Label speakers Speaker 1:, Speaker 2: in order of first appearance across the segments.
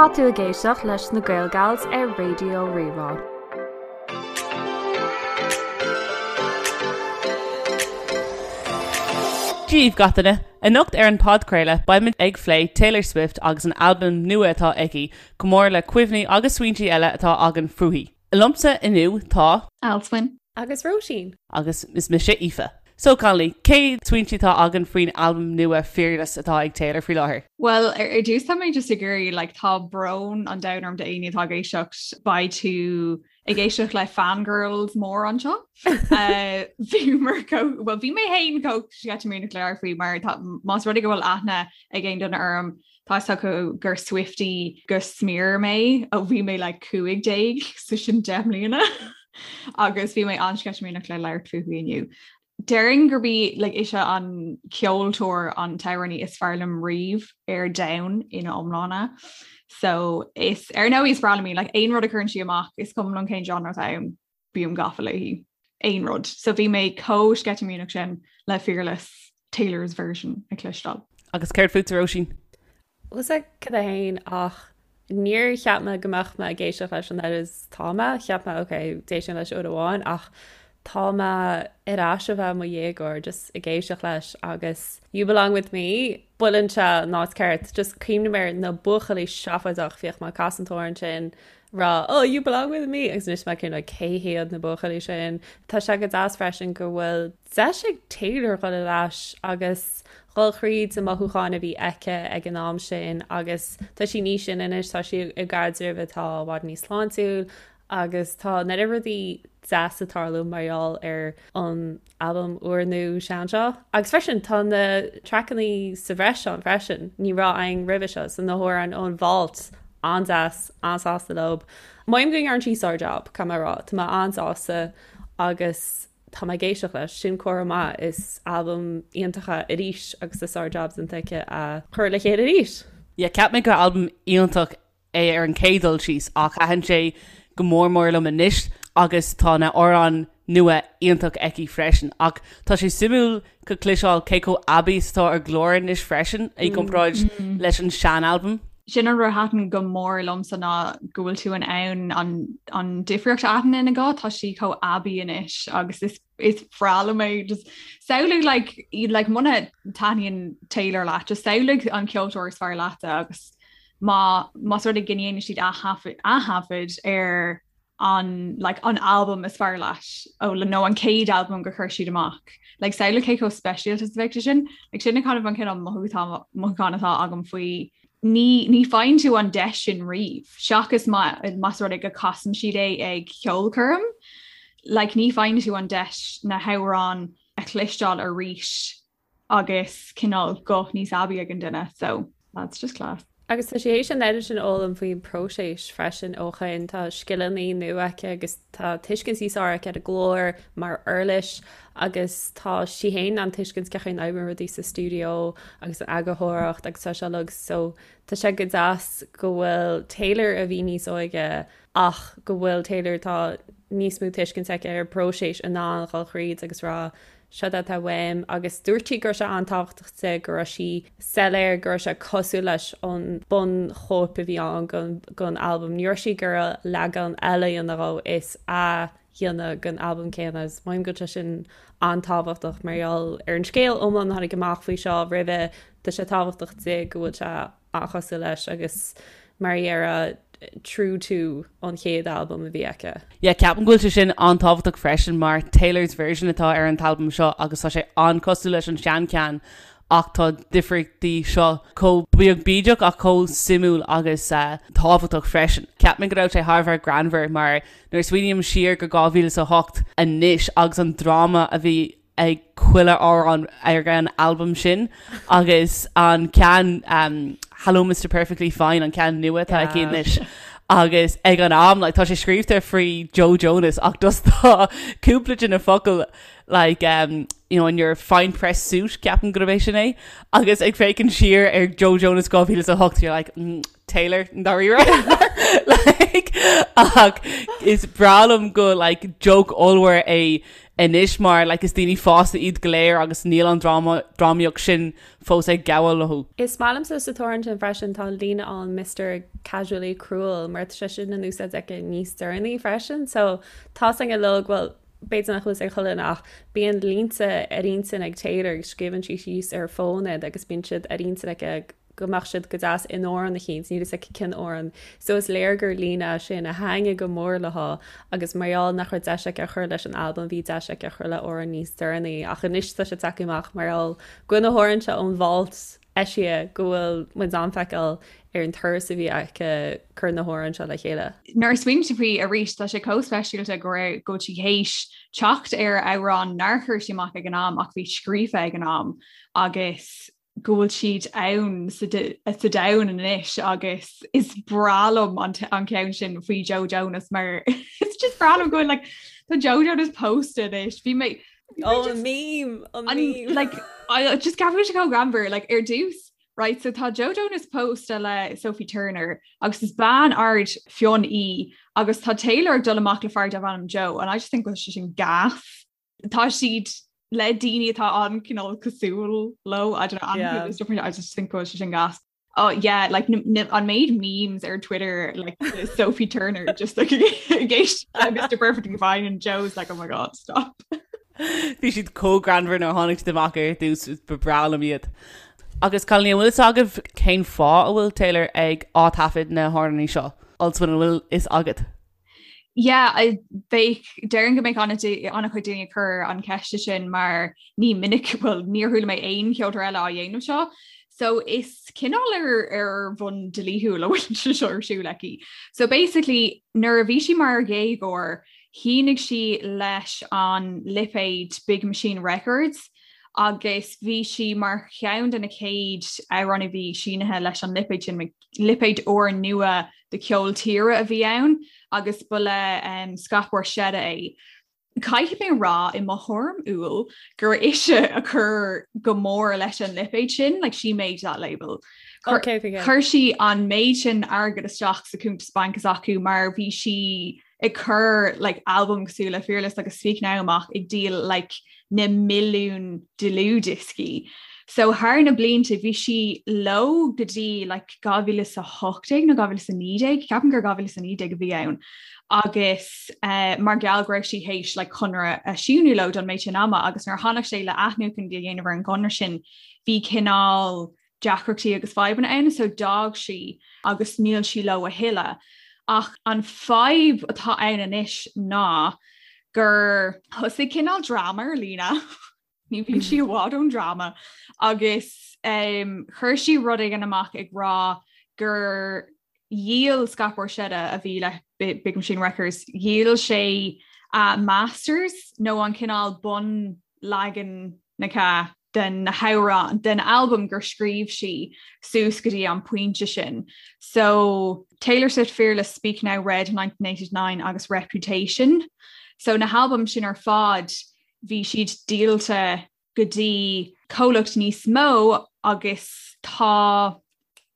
Speaker 1: Tá tú ag éisteacht leis na Gael Gals ar Raidió Rí-Rá.
Speaker 2: Dia daoibh gach duine! Anocht ar an podchraoladh beimid ag phlé Taylor Swift agus an albam nua atá aici, chomh mór le cuimhní agus smaointí eile atá againn fúithi. Liomsa inniu tá.
Speaker 3: Alswyn.
Speaker 4: Agus Róisín.
Speaker 2: Agus is mise Aoife. So Connolly, cé smaointí atá againn faoin albam nua Fearless atá ag Taylor faoi láthair?
Speaker 3: Bhuel, ar dtús tá mé just ag iarraidh, like, tá brón an domhain orm d'éinne atá ag éisteacht, beidh tú ag éisteacht le fangirls mór anseo. Bhíomar chomh, well bhí mé féin chomh sceitimíneach le labhairt faoi mar tá, más rud é go bhfuil aithne ag aon duine orm, Tá fhios acu gur Swiftie go smior mé ó bhí mé like 15, so sin 10 mbliana agus bhí mé an-sceitimíneach le labhairt fúithi inniu. Déarfainn gurb í like, ise an ceoltóir an t-amhránaí is fearr liom riamh ar domhan ina iomláine. So is ar ndóigh is breá liom í like, aon rud a chuireann sí amach is cuma liom cén genre atá ann. bím gafa léi. Aon rud. So bhí mé chomh sceitimíneach sin le Fearless, Taylor's version a chloisteáil.
Speaker 2: Agus céard fútsa Róisín?
Speaker 4: Bhfuil 's agat féin ach níor cheap mé go mbeadh mé ag éisteacht leis an oiread is tá mé. Cheap mé ok, d'éist mé leis uair amháin ach tá mé ar ais a bheith i mo dhéagóir just ag éisteacht leis agus You Belong With Me, buaileann sé an áit ceart. Just cuimhním ar na buachaillí seafóideach, bhíodh mé ag casadh an t-amhrán sin rá oh you belong with me agus anois mé cineál cé hiad na buachaillí sin. Tá sé go deas freisin go bhfuil deis ag Taylor dhul ar ais agus dhul thríd na mothúcháin a bhí aici ag an am sin agus tá sí níos sine anois, tá sí i gcaidreamh atá i bhfad níos sláintiúil agus tá an oiread rudaí deas ag tarlú mar gheall ar an albam úrnua sean seo. Agus freisin tá na traiceanna sa bhreis ann freisin, ní raibh ann roimhe seo, so na hamhráin ón Vault, an-deas, an-sásta leo. Mothaím go ndearna sí sár-jab, caithfidh mé a rá, tá mé an-sásta agus tá mé ag éisteacht leis, sin comhartha maith, is albam iontach é arís agus tá sár-jab déanta aici a chur le chéile arís.
Speaker 2: Yeah, cheap mé gur albam iontach é ar an chéad dul síos ach thaitin sé go mór mór liom anois agus tá na hamhráin nua iontach aici freisin. Ach tá sé suimiúil go cloisteáil cé chomh aibí is atá a glór anois freisin i gcomparáid leis an sean-albam.
Speaker 3: Sin an rud a thaitin go mór liomsa ná go bhfuil tú in ann an an difríocht a aithint ina guth, tá sí chomh aibí anois agus is is breá liom é just samhlaigh like like muna taitníonn Taylor leat just samhlaigh an ceoltóir is fearr leat agus má más rud é go ndéanann siad aththaifead ar an like an album is fearr leat ó le nó an chéad album gur chuir siad amach. Like samhlaigh cé chomh speisialta is a bheadh sé sin, like sin kind of an cineál mothúchán mothúchán atá agam faoi ní ní faigheann tú an deis sin riamh seachas má más rud é go casann siad é ag ceolchoirm like ní faigheann tú an deis na hamhráin a chloisteáil arís agus cineál guth níos aibí ag an duine so that's just class.
Speaker 4: Agus tá sí théis an oiread sin a fhoghlaim faoin bpróiseas freisin ó shin. Tá scileanna nua aici agus tá tuiscint níos fearr aici ar a glór mar uirlis agus tá sí féin in ann tuiscint cén chaoi a n-oibríonn rudaí sa stiúideo agus an eagarthóireacht agus tá sé uilig so tá sé go deas go bhfuil Taylor a bhí níos óige ach go bhfuil Taylor atá níos mó tuiscint aici ar an bpróiseas in ann dhul thríd agus rá seo atá uaim agus dúirt sí go raibh sé an-tábhachtach di go raibh sí soiléir go raibh sé cosúil leis an bunchóip a bhí ann den albam. Ní raibh sí ag iarraidh leagan eile a dhéanamh dhó is athdhéanamh den albam céanna agus mothaím go bhfuil sé sin an-tábhachtach mar gheall ar an scéal iomlán a tháinig amach faoi seo roimhe tá sé tábhachtach di go bhfuil sé an-chosúil leis agus mar a déarfá true to an chéad albam a bhí aici.
Speaker 2: Yeah, ceapaim go bhfuil sé sin an-tábhachtach freisin mar Taylor's version atá ar an t-albam seo agus tá sé an-cosúil leis an seancheann ach tá difríochtaí seo chomh beag bídeach ach chomh suimiúil agus tábhachtach freisin. Cheap mé go raibh sé thar a bheith greannmhar mar nuair a smaoiním siar go 2008 anois agus an dráma a bhí ag chuile amhrán ar an albam sin agus an ceann um, Hello Mr Perfectly Fine an ceann nua atá aici anois agus ag an am like, tá sé scríofa faoi Joe Jonas ach just tá cúpla de na focail like um, you know, in your fine press suit ceapaim gurb é sin é agus ag féachaint siar ar Joe Jonas 2008 you're like mm, Taylor ndáiríre like ach is breá liom go like joke ollmhór é. anois mar like is daoine fásta iad go léir agus níl an drámaíocht sin fós ag gabháil leo.
Speaker 4: Is maith liomsa sa t-amhrán sin freisin tá an líne ann Mister Casually Cruel mar tá sé sin in úsáid aici níos deireanaí freisin so tá 's againn uilig bhuel b'fhéidir nach bhfuil 's ag chuile dhuine ach bíonn línte ar intinn ag Taylor agus scríobhann sí síos ar a fón iad agus bíonn siad ar intinn aici go mbeadh siad go deas in amhrán eicínt, níl 'fhios aici cén amhrán. So is léir gur líne é sin a thaitnigh go mór léi agus mar gheall nach raibh deis aici a chur leis an albam bhí deis aici a chur le amhrán níos deireanaí ach anois tá sé tagtha amach mar gheall go bhfuil na hamhráin seo ón vault eisithe go bhfuil muid in ann feiceáil ar an turas a bhí aici cur na hamhráin seo le chéile.
Speaker 3: Nuair a smaoiním faoi arís tá sé chomh speisialta go raibh go bhfuil sí théis teacht ar amhrán nár chuir sí amach ag an am ach bhí scríofa ag an am agus go bhfuil siad ann sa domhan anois agus is breá liom an ceann sin faoi Joe Jonas mar it's just breá liom go bhfuil like tá Joe Jonas pósta anois bhí mé
Speaker 4: Oh, an meme an meme
Speaker 3: like I just ceapaim sé chomh greannmhar like ar dtús right so tá Joe Jonas pósta le Sophie Turner agus is bean ard fionn í agus tá Taylor ag dul amach le fear darb ainm Joe and I just think go bhfuil sé sin gas tá siad le daoine atá an-chineál cosúil leo I don't know yeah. I just think go bhfuil sé sin gas. Oh yeah, like an méid memes ar Twitter like Sophie Turner just like ag Mr Perfectly Fine and Joe's like oh my god stop.
Speaker 2: Bhí siad chomh greannmhar nuair a tháinig siad amach ar dtús ba bhreá liom iad. Agus cailíní an bhfuil fhios agaibh cén fáth a bhfuil Taylor ag ath-taifead na hamhráin seo? Alswyn an bhfuil fhios agat?
Speaker 3: Yeah, I bheadh déarfainn go mbeadh an-chuid daoine ag cur an ceiste sin mar ní minic well níor chuala mé aon cheoltóir eile á dhéanamh seo. So is cineál ar ar bhonn dlíthiúil a bhfuil sé seo ar siúl aici. So basically nuair a bhí sí mar dhéagóir, shínigh sí leis an lipéad Big Machine Records agus bhí sí mar cheann de na chéad amhránaithe a bhí sínithe leis an lipéad sin, lipéad úr nua do cheol tíre a bhí ann agus ba le Scott Borchetta é. Caithfidh mé rá i mo thuairim umhal gur ise a chuir go mór leis an lipéad sin, like she made that label. Chuir sí an méid sin airgead isteach sa cuntas bainc s'acu mar bhí sí ag cur like albam cosúil le Fearless agus Speak Now amach ag díol like na milliún dlúthdhioscaí. So thar na blianta bhí sí leo go dtí like 2018 nó 2019, ceapaim gur 2019 a bhí ann agus uh, mar gheall go raibh sí théis like conradh a síniú leo don méid sin ama agus nuair a tháinig sé le athnuachan a dhéanamh ar an gconradh sin bhí cineál deacrachtaí agus fadhbanna ann so d'fhág sí agus níl sí leo a thuilleadh. Ach an fadhb atá ann anois ná gur thosaigh cineál dráma ar líne, ní bhíonn sí i bhfad ón dráma, agus um, chuir sí rud éigin amach ag rá gur dhíol Scott Borchetta a bhí le Big Machine Records, dhíol sé a masters nó an cineál bunleagan na den na hamhráin den albam gur scríobh sí suas go dtí an pointe sin. So Taylor Swift Fearless, Speak Now, Red 1989 agus Reputation. So na halbaim sin ar fad bhí siad díolta go dtí comhlacht níos mó agus tá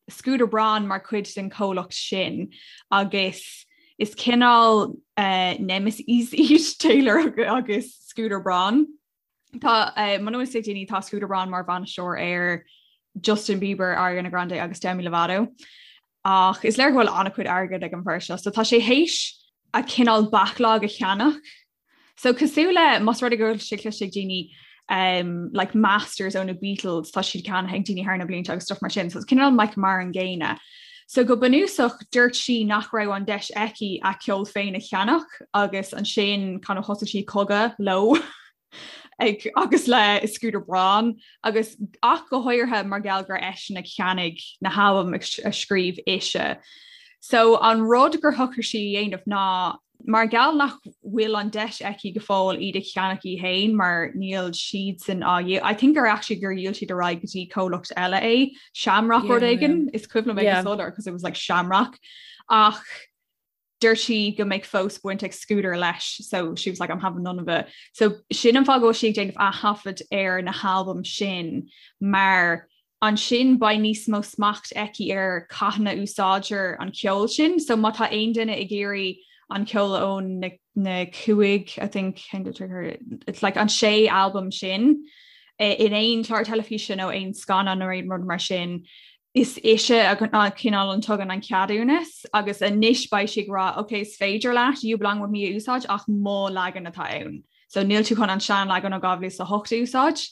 Speaker 3: Scooter Braun mar chuid den chomhlacht sin agus is cineál uh, nemesis iad Taylor agus Scooter Braun. Tá eh, muna bhfuil fhios ag daoine tá Scooter Braun mar bhainisteoir ar Justin Bieber, Ariana Grande agus Demi Lovato. Ach is léir go bhfuil an-chuid airgid ag an bhfear seo, so tá sé théis a cineál backlog a cheannach. So cosúil le más rud é go bhfuil sé cloiste ag daoine um, like masters ó na Beatles tá siad ceannaithe ag daoine thar na blianta agus stuff mar sin, so it's cineál like mar an gcéanna. So go bunúsach dúirt sí nach raibh an deis aici a ceol féin a cheannach agus ansin kind of thosaigh sí cogadh leo ag agus le Scooter Braun agus ach go háirithe mar gheall gur eisean a cheannaigh na halbaim a scríobh ise. So an rud gur shocraigh sí a dhéanamh ná mar gheall nach bhfuil an deis aici go fóill iad a cheannach í féin mar níl siadsan á dhíol I think gur actually gur dhíol siad ar aghaidh go dtí comhlacht eile é Shamrock rud éigin is cuimhin liom é go soiléir because it was like Shamrock ach dúirt sí go mbeidh fós baint ag Scooter leis so she was like I'm having none of it. So sin an fáth go bhfuil sí ag déanamh aththaifead ar na halbaim sin mar ansin beidh níos mó smacht aici ar cathain a úsáidtear an ceol sin, so má tá aon duine ag iarraidh an ceol ó na na 5 I think it's like an sé albam sin in aon chlár teilifíse nó aon scannán nó aon rud mar sin is ise a cineál an tugann an ceadúnas agus anois beidh sí ag rá ok is féidir leat You Belong With Me a úsáid ach mo leagan atá ann. So níl tú chun an seanleagan ó 2008 a úsáid,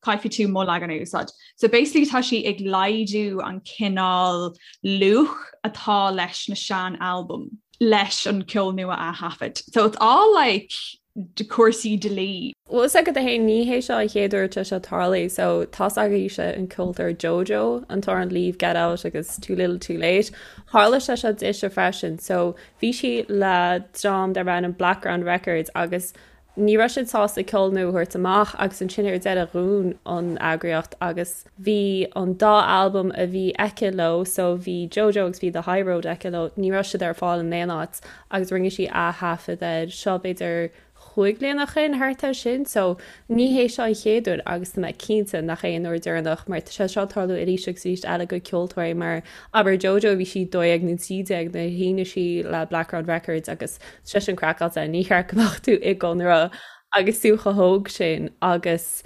Speaker 3: caithfidh tú mo leagan a úsáid. So basically tá sí ag laghdú an cineál luach atá leis na sean-albaim leis an ceol nua a thaifead. So it's all like cúrsaí dlí.
Speaker 4: Bhfuil fhios agat féin ní hé seo an chéad uair atá seo tarlaithe so tá's agaibhse an ceoltóir JoJo an t-amhrán Leave Get Out agus Too Little Too Late. Tharla sé seo dise freisin so Bhí sí le dream darb ainm Blackground Records agus ní raibh siad sásta ceol nua a thabhairt amach agus ansin ar deireadh dhún an eagraíocht agus bhí an dá albam a bhí aici leo, so bhí JoJo agus bhí The High Road aici leo, ní raibh siad ar fáil in aon áit agus rinne sí ath-thaifead air seo b'fhéidir chúig bliana ó shin, thart air sin. So, ní hé seo an chéad uair agus tá mé cinnte nach é an uair deireanach mar tá sé seo ag tarlú arís agus arís eile go ceoltóirí mar abair JoJo bhí sí 12 nó 13 nuair a shínigh sí le Blackground Records agus tá sé sin craiceáilte, ní cheart go mbeadh tú i gconradh agus tú chomh hóg sin agus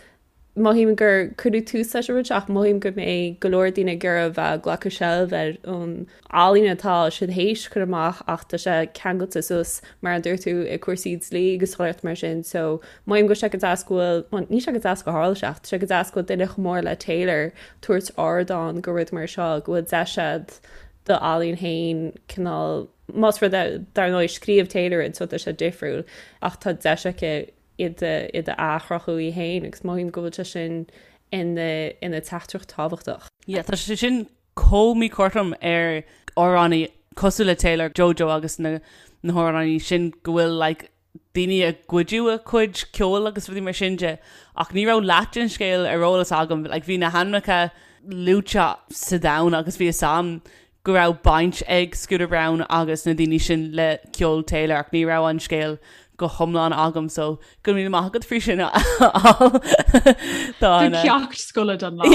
Speaker 4: Mothaím gur cuireadh tús leis an rud seo ach mothaím go mbeidh go leor daoine ag iarraidh a bheith ag glacadh seilbh ar an ealaín atá siad théis cur amach ach tá sé ceangailte suas mar a dúirt tú i cúrsaí dlí agus chuile mar sin so mothaím go bhfuil sé go deas go bhfuil, bhuel níl sé go deas go tharla sé ach tá sé go deas go bhfuil duine chomh mór le Taylor tabhairt ardán go rud mar seo go bhfuil deis a'd do ealaín féin cineál más rud é dar ndóigh scríobh Taylor iad so tá sé difriúil ach tá deis aici iad a athchruthú í féin agus mothaím go bhfuil sé sin ina ina teachtaireacht tábhachtach.
Speaker 2: Yeah, tá sé sin chomh míchothrom ar amhránaí cosúil le Taylor, Jojo agus na na hamhránaí sin go bhfuil like daoine ag goideadh a cuid ceoil agus rudaí mar sin de ach ní raibh leath den scéal ar eolas agam like bhí na hainmneacha luaite sa domhan agus bhí fhios a'm go raibh baint ag Scooter Braun agus na daoine sin le ceol Taylor ach ní raibh an scéal go hiomlán agam so go raibh míle maith agat faoi sin a fháil.
Speaker 3: Tá an ceacht scoile don
Speaker 4: lá.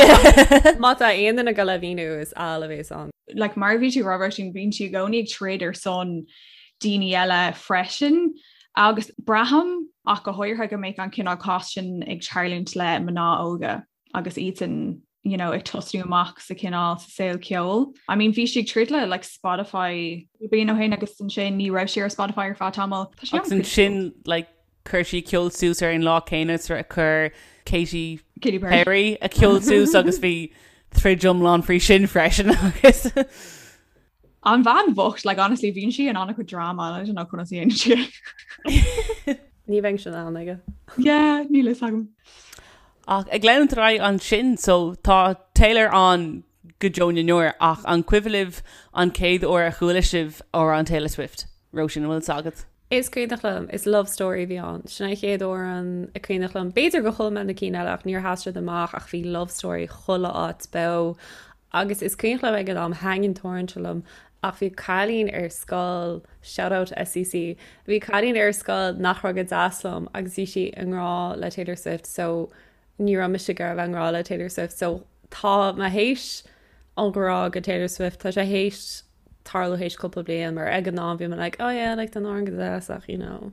Speaker 4: Má tá aon duine ag dul a mhíniú is Al a bhéas ann.
Speaker 3: Like mar a bhí tú ag rá Róisín bíonn sí i gcónaí ag troid ar son daoine eile freisin agus braithim ach go háirithe go mbeidh an cineál cás sin ag tarlúint le mná óga agus iadsan you know, ag tosnú amach sa cineál sa saol ceoil. I mean bhí sí ag troid le like Spotify bliain ó shin agus ansin ní raibh sí ar Spotify ar feadh tamaill.
Speaker 2: Tá sé Agus ansin like chuir sí ceol suas ar an lá céanna is a chuir Katy
Speaker 3: Katy Perry.
Speaker 2: Perry a ceol suas agus bhí troid iomlán faoi sin freisin agus
Speaker 3: An bhean bhocht, like honestly bíonn sí in an-chuid drama I don't know conas a dhéanann sí
Speaker 4: é. Ní bheinn sin ann aige.
Speaker 3: Yeah, níl fhios agam.
Speaker 2: Ach ag leanúint ar aghaidh ansin, so tá Taylor ann go deo na ndeor ach an cuimhin libh an chéad uair a chuala sibh amhrán Taylor Swift? Róisín, an bhfuil fhios agat?
Speaker 4: Is cuimhneach liom, is Love Story a bhí ann. Sin an chéad amhrán a cuimhneach liom. B'fhéidir gur chuala mé na cinn eile ach níor sheas siad amach ach bhí Love Story chuile áit beo Agus is cuimhneach liom ag an am, thaitin an t-amhrán seo liom, ach bhí cailín ar scoil, shout out SCC, bhí cailín ar scoil nach raibh go deas liom agus bhí sí i ngrá le Taylor Swift so ní raibh mise ag iarraidh a bheith i ngrá le Taylor Swift so tá mé théis an ghrá go Taylor Swift, tá sé théis tarlú théis cúpla bliain mar ag an am bhí mé like oh yeah like tá an t-amhrán go deas ach you know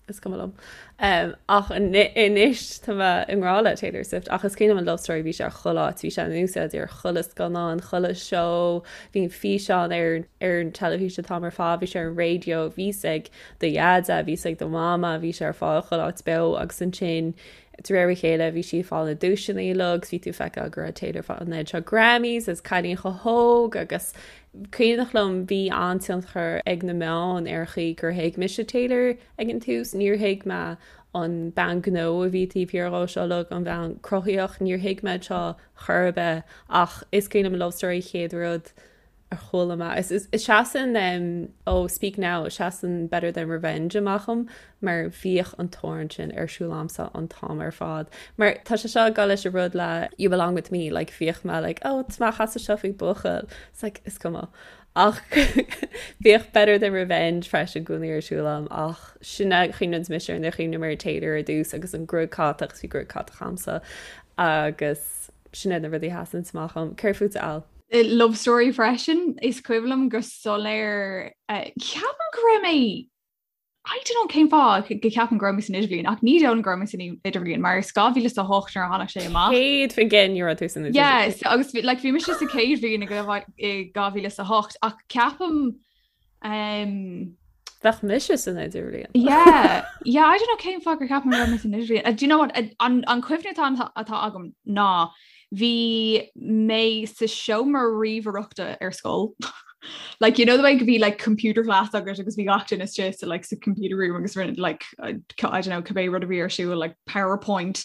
Speaker 4: is cuma liom. Um, ach anois tá mé i ngrá le Taylor Swift ach is cuimhin liom an Love Story bhí sé ar chuile áit, bhí sé in úsáid ar chuile scannán, chuile seó, bhí an físeán ar ar an teilifís an t-am ar fad, bhí sé ar an raidió, bhí sé ag do dheaide, bhí sé ag do mhama, bhí sé ar fáil chuile áit beo agus ansin de réir a chéile bhí sí ag fáil na duaiseanna uilig agus bhí tú ag feiceáil go raibh Taylor ag fáil an oiread seo Grammys agus cailín chomh hóg agus cuimhneach liom bhí an-tionchar ag na meáin ar an chaoi gur thuig mise Taylor ag an tús. Níor thuig mé an bean gnó a bhí taobh thiar dhó seo uilig, an bhean cruthaíoch, níor thuig mé seo chor ar bith ach is cuimhin liom Love Story chéad rud a chuala mé. Is seasann ó Speak Now, seasann Better Than Revenge amach dom mar bhíodh an t-amhrán sin ar siúl a'msa an t-am ar fad. Mar tá sé seo ag dul leis an rud le You Belong With Me, like bhíodh mé like oh tá mé ag casadh seo faoi buachaill, it's like is cuma. Ach bhíodh Better Than Revenge freisin i gcónaí ar siúl a'm ach sin a chuimhníonn mise ar nuair a chuimhním ar Taylor ar dtús agus an gruaig catach 'cause bhí gruaig catach a'msa agus sin iad na rudaí a sheasann amach dom. Céard fútsa Al?
Speaker 3: Love Story freisin, is cuimhin liom go soiléir, ceapaim go raibh mé. I don't know cén fáth go ceapaim go raibh mé san idirbhliain ach ní dóigh liom go raibh mé san idirbhliain mar is 2008 nuair a tháinig sé amach.
Speaker 4: 100% ní raibh tú san idirbhliain.
Speaker 3: Yeah, so, agus bhí- like, bhí mise sa chéad bhliain i 2008 ach ceapaim um,
Speaker 4: Bheadh mise san idirbhliain.
Speaker 3: Yeah, yeah, I don't know cén fáth gur cheap mé go raibh mé san idirbhliain. Uh, do you know what, uh, an, an cuimhne atá, atá agam ná bhí mé sa seomra ríomhaireachta ar scoil. Like, you know the way go bhí like computer class agat agus bhí gach duine istigh sa like sa computer room agus rinne like uh, I don't know cibé rud a bhí ar siúl like PowerPoint.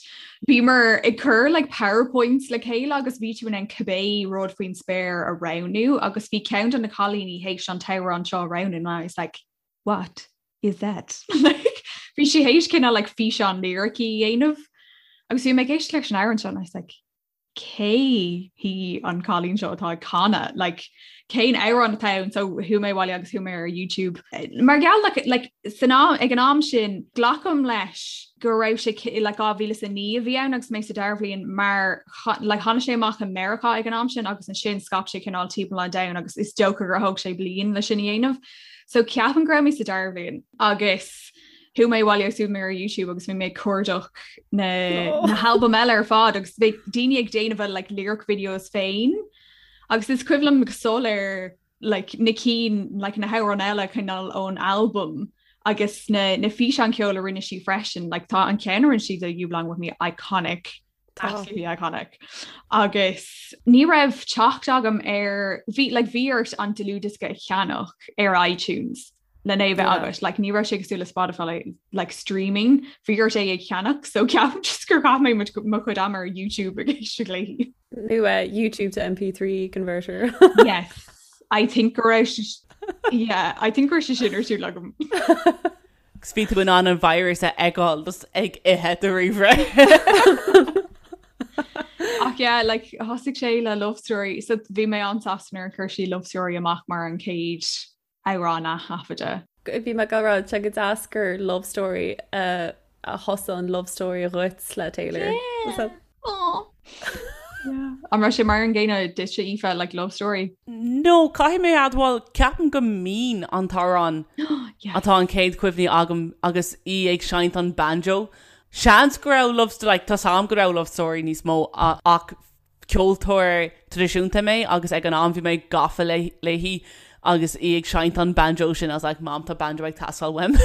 Speaker 3: Bhíomar ag cur like PowerPoints le chéile agus bhí tú in ann cibé rud faoin spéir a roghnú agus bhí ceann de na cailíní théis an t-amhrán seo a roghnú and I was like what is that? Like bhí sí théis cineál like físeán liricí a dhéanamh agus bhí mé ag éisteacht leis an amhrán seo and I was like cé hí an cailín seo atá ag canadh like cén amhrán atá ann so chuaigh mé abhaile agus chuaigh mé ar YouTube. Mar gheall like, like, san am ag an am sin glacaim leis go raibh sé like 2009 a bhí ann agus mé sa dara bhliain mar like tháinig sé amach i Meiriceá ag an am sin agus ansin scaip sé cineál timpeall an domhain agus is dócha gur thóg sé bliain le sin a dhéanamh. So ceapaim go raibh mé sa dara bhliain agus Chuaigh mé abhaile agus chuaigh mé ar YouTube agus bhí mé ag cuardach na na halbaim eile ar fad agus bhí daoine ag déanamh a like lyric videos féin agus is cuimhin liom go soiléir like na cinn like na hamhráin eile cineál ón albam agus na na físeáin ceoil a rinne sí freisin like tá an ceann a rinne sí de You Belong With Me iconic absolutely iconic agus ní raibh teacht agam ar bhí like bhí ort an dlúthdhiosca a cheannach ar iTunes lena bheith agat like ní raibh sé cosúil le Spotify like streaming bhí ort é a cheannach so ceapaim just gur chaith mé mo chuid ama ar YouTube ag éisteacht léi.
Speaker 4: Nó uh, YouTube to MP3 converter.
Speaker 3: Yes I think go raibh yeah I think go raibh sé sin ar siúl agam.
Speaker 2: Agus bhí tú in ann an virus a fheiceáil just ag ithe do ríomhaire.
Speaker 3: Ach yeah, like thosaigh sé le Love Story, so bhí mé an-sásta nuair a chuir sí Love Story amach mar an chéad amhrán a thaifeadadh.
Speaker 4: Bhí mé ag rá tá sé go deas gur Love Story a thosaigh an love story dhuit le Taylor.
Speaker 3: Yeah. Aww. Yeah. An raibh sé mar an gcéanna duitse Aoife like Love Story?
Speaker 2: No, caithfidh mé a admháil, ceapaim go Mean an t-amhrán
Speaker 3: Yes.
Speaker 2: atá an chéad chuimhní agam agus í ag seinnt an banjo. Seans go raibh Love Story, like, tá's agam go raibh Love Story níos mó ach ceoltóir traidisiúnta mé agus ag an am bhí mé gafa léi agus í ag seinnt an banjo sin I was like Mam tá banjo ag teastáil uaim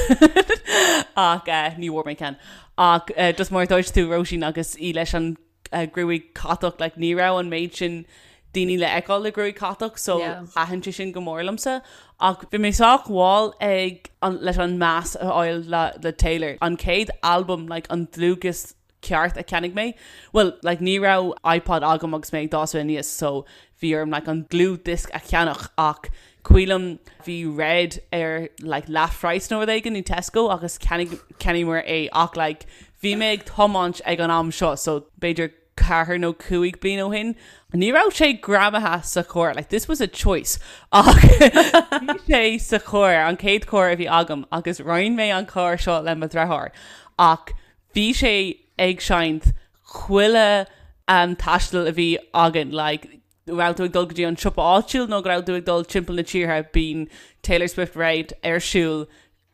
Speaker 2: ach eh, ní bhfuair mé ceann. Ach eh, just mar a dúirt tú Róisín agus í leis an eh, gruaig catach like, ní raibh an méid sin daoine le feiceáil le gruaig catach so
Speaker 4: Yeah.
Speaker 2: thaitin sé sin go mór liomsa. Ach bhí mé sách mall ag an, leis an meas a fháil le, le Taylor. An chéad album like, an dlúthdhiosca ceart a cheannaigh mé. Bhuel, like, ní raibh iPod agam agus mé ag dás aníos so bhí orm like an dlúthdhiosca a cheannach ach cuimhin liom bhí Red ar like leathphraghas nó rud éigin i Tesco agus cheannaigh cheannaíomar é ach like bhí mé ag tiomáint ag an am seo so b'fhéidir ceathair nó cúig bliain ó shin. Ní raibh sé greamaithe sa charr, like this was a choice ach bhí sé sa charr, an chéad charr a bhí agam agus roinn mé an carr seo le mo dhreatháir ach Bhí sé ag seinnt chuile taisteal a bhí againn, like raibh tú ag dul go dtí an siopa áitiúil nó go raibh tú ag dul timpeall na tíre, bíonn Taylor Swift Red ar siúl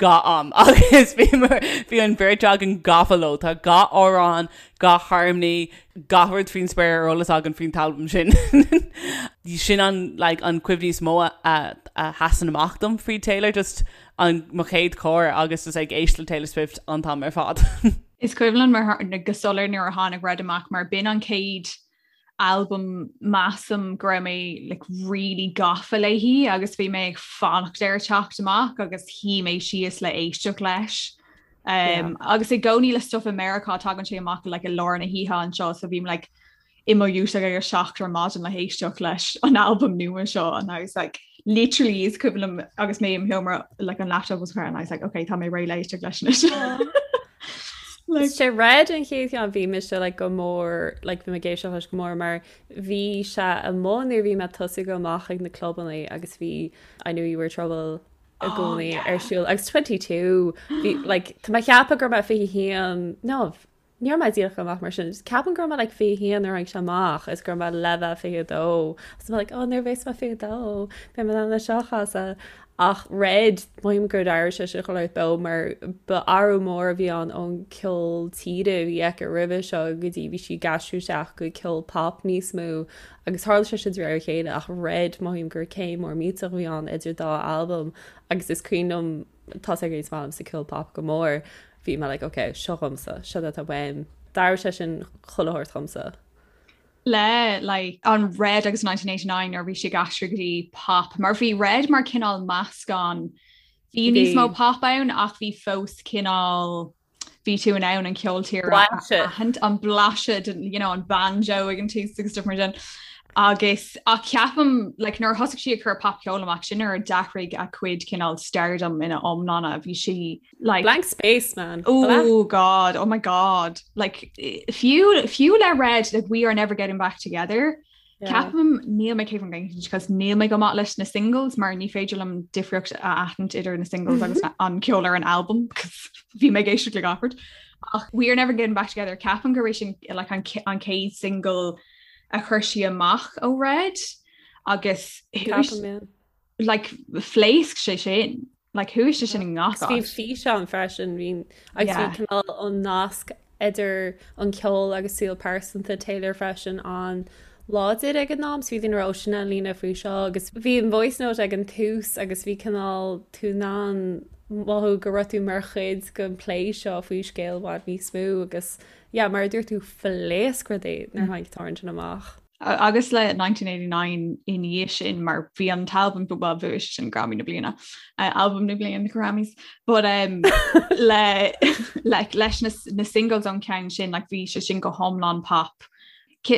Speaker 2: gach am agus bhí bhí an bheirt againn gafa leo. Tá gach amhrán, gach harmony, gach rud faoin spéir ar eolas againn faoin t-albam sin. Sin an like an cuimhní is mó a a sheasann amach dom faoi Taylor, just an mo chéad charr agus just ag éisteacht le Taylor Swift an t-am ar fad.
Speaker 3: Is cuimhin liom go soiléir nuair a tháinig Red amach mar b'in an chéad albam measaim go raibh mé like, really gafa léi agus bhí mé ag fanacht air teacht amach agus shuigh mé síos le éisteacht leis. Um, yeah. Agus i gcónaí le stuff i Meiriceá tagann sé amach like, i lár na hoíche anseo so bhím like, i mo dhúiseacht ag a 7 ar maidin le héisteacht leis an albam nua seo and I was like literally is cuimhin liom agus mé im sheomra like an laptop was and I was like okay tá mé réidh le éisteacht leis anois.
Speaker 4: Like, sé Red an chéad cheann bhí mise like, go mór like, bhí mé ag éisteacht leis go mór mar bhí sé amuigh nuair bhí mé tosaithe amach ag na clubanna agus bhí I knew you were trouble i oh, gcónaí ar siúl agus 22 bhí like, tá mé ag ceapadh go raibh mé 21 no. Ní raibh mé díreach chomh maith mar sin. Ceapaim go raibh mé like 21 nuair a tháinig sé amach is go raibh mé le bheith 22. Agus mé like, oh nuair a bheas mé 22, beidh mé in ann é seo a chasadh. Ach Red, mothaím gur d'éirigh sé sin chomh beo mar ba athrú mór a bhí ann ón ceol tíre a bhí aici roimhe seo go dtí bhí sí ag aistriú isteach go ceol pop níos mó agus tharla sé sin de réir a chéile ach Red mothaím gur céim mór millteach a bhí ann idir dá albam agus is cuimhin liom tá sé is maith liomsa ceol pop go mór bhí mé like ok seo dhomsa seo atá uaim d'athraigh sé sin chuile shórt dhomsa.
Speaker 3: Le like an Red agus 1989 nuair bhí sí ag aistriú go dtí pop mar bhí Red mar cineál meascán bhí níos mó pop ann ach bhí fós cineál bhí tú in ann an ceol tíre aithint an blaiseadh you know, an banjo ag an tús agus stuff mar sin. Agus ach ceapaim like, nuair a thosaigh sí ag cur popcheol amach sin nuair a d'athraigh a cuid cineál stardom ina iomláine bhí sí like
Speaker 4: Blank space man.
Speaker 3: Oh God, oh my God. Like fiú fiú le Red like we are never getting back together. Ceapaim níl mé 100% because níl mé go maith leis na singles mar ní féidir liom difríocht a aithint idir na singles agus an ceol ar an album because bhí mé ag éisteacht le gach rud. Ach we are never getting back together ceapaim gur sin like an an chéad single a chuir sí amach ó Red agus like phléasc sé sin. Like chuaigh sé sin i ngach
Speaker 4: áit. Bhí físeán freisin bhí agus bhí cineál an nasc idir an ceol agus saol pearsanta Taylor freisin an-láidir ag an am so bhí daoine ag rá sin an líne faoi seo agus bhí an voice note ag an tús agus bhí cineál tú in ann mothú go raibh tú mar chuid den plé seo faoi scéal i bhfad níos mó agus yeah mar a dúirt tú phléasc rudaí nuair a tháinig an t-amhrán sin amach.
Speaker 3: Agus le 1989 i ndiaidh sin mar bhí an t-albam well bhuaigh sé sin Grammy na bliana uh, albam na bliana na Grammys but um, le like, leis na, na singles ón ceann sin like, bhí sé sin go hiomlán pop.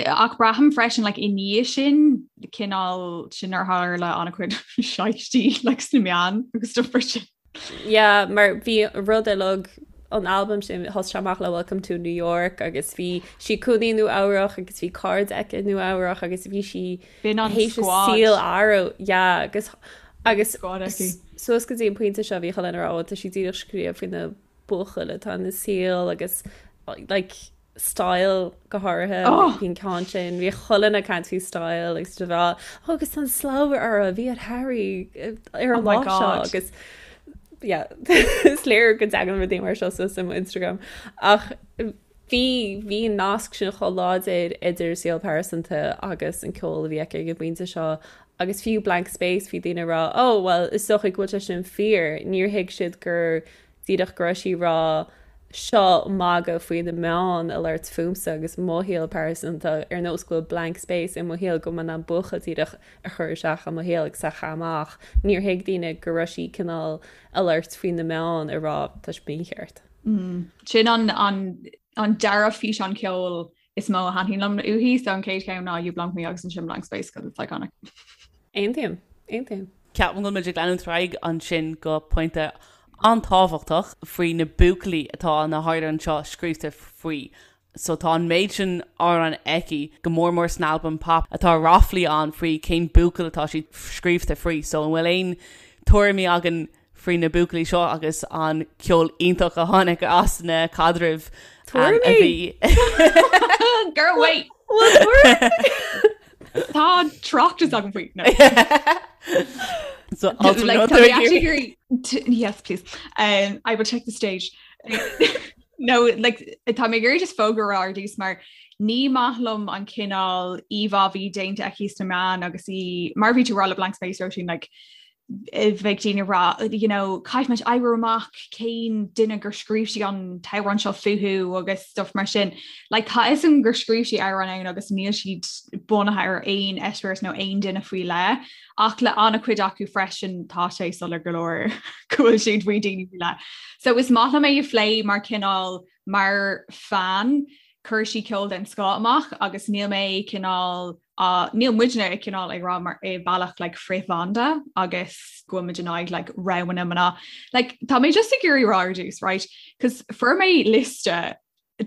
Speaker 3: Ach braithim freisin like, i ndiaidh sin cineál sin ar tharla an-chuid shaistí like, sna meáin agus stuff mar sin.
Speaker 4: Yeah, mar bhí rud uilig an albam sin thosaigh sé amach le Welcome to New York agus bhí sí ina cónaí i Nua Eabhrach agus bhí cairde aici i Nua Eabhrach agus bhí sí
Speaker 3: B'in an squad. saol
Speaker 4: athrú yeah agus agus Squad aici. suas go dtí an pointe seo bhí chuile dhuine ag rá "Ó, tá sí díreach ag scríobh faoi na buachaill atá ina saol agus like Style go háirithe oh! bhí an ceann sin bhí chuile dhuine ag caint faoi Style agus de bheith oh, agus an slabhra a bhí ar Harry eh, ar an oh lá seo agus yeah, is léir go dtagann rudaí mar seo suas i mo Instagram ach bhí bhí an nasc sin chomh láidir idir saol pearsanta agus an ceol a bhí aici ag an bpointe seo agus fiú Blank Space bhí daoine ag rá oh well is dócha go bhfuil sé sin fíor níor thuig siad gur Díreach go raibh sí ag rá seo magadh faoi na meáin ag labhairt fúmsa agus mo shaol pearsanta ar nós go bhfuil blank space i mo shaol go mbeidh an buachaill díreach a chur isteach i mo shaol agus a chaitheamh amach. Níor thuig daoine go raibh sí cineál ag labhairt faoi na meáin ag rá tá sé mícheart.
Speaker 3: Sin an an an dara físeán ceoil is mó a thaitníonn liom uaithi, so an chéad cheann ná You Belong With Me agus ansin Blank Space because it's iconic.
Speaker 4: Aontaím. Aontaím.
Speaker 2: Ceapaim go bhfuil muid ag leanúint ar aghaidh ansin go pointe an-tábhachtach faoi na buachaillí atá na hamhráin seo scríofa faoi. So tá an méid sin amhrán aici, go mór mór san albam pop, atá ráflaí ann faoi cén buachaill atá siad scríofa faoi. So an bhfuil aon tuairimí againn faoi na buachaillí seo agus an ceol iontach a tháinig as na caidrimh a bhí.
Speaker 3: Girl, wait! Tá tráchtas agam faoi. No.
Speaker 2: So,
Speaker 3: like, tá mé actually hearing yes, please. Um, I will take the stage. No, like, tá mé ag iarraidh just fógra a rá ar dtús mar ní maith liom an cineál íomhá a bhí déanta aici sna meáin agus í mar bhí tú ag rá le Blank Space Róisín like, bheadh daoine ag rá you know, caithfidh muid oibriú amach cén duine gur scríobh sí an t-amhrán seo fúthu agus stuff mar sin. Like, tá fhios agam gur scríobh sí amhráin ann agus níl siad bunaithe ar aon eispéireas nó aon duine faoi leith, ach le an-chuid acu freisin tá sé soiléir go leor go bhfuil siad faoi daoine faoi leith. So is maith liom é a phlé mar cineál mar fan, chuir sí ceol den scoth amach agus níl mé cineál á, níl muidne ag cineál ag rá mar i bealach like frith-bhanda agus go bhfuil muid in aghaidh like roghanna mná. Like tá mé just ag iarraidh rá ar dtús, right? Cos fuair mé liosta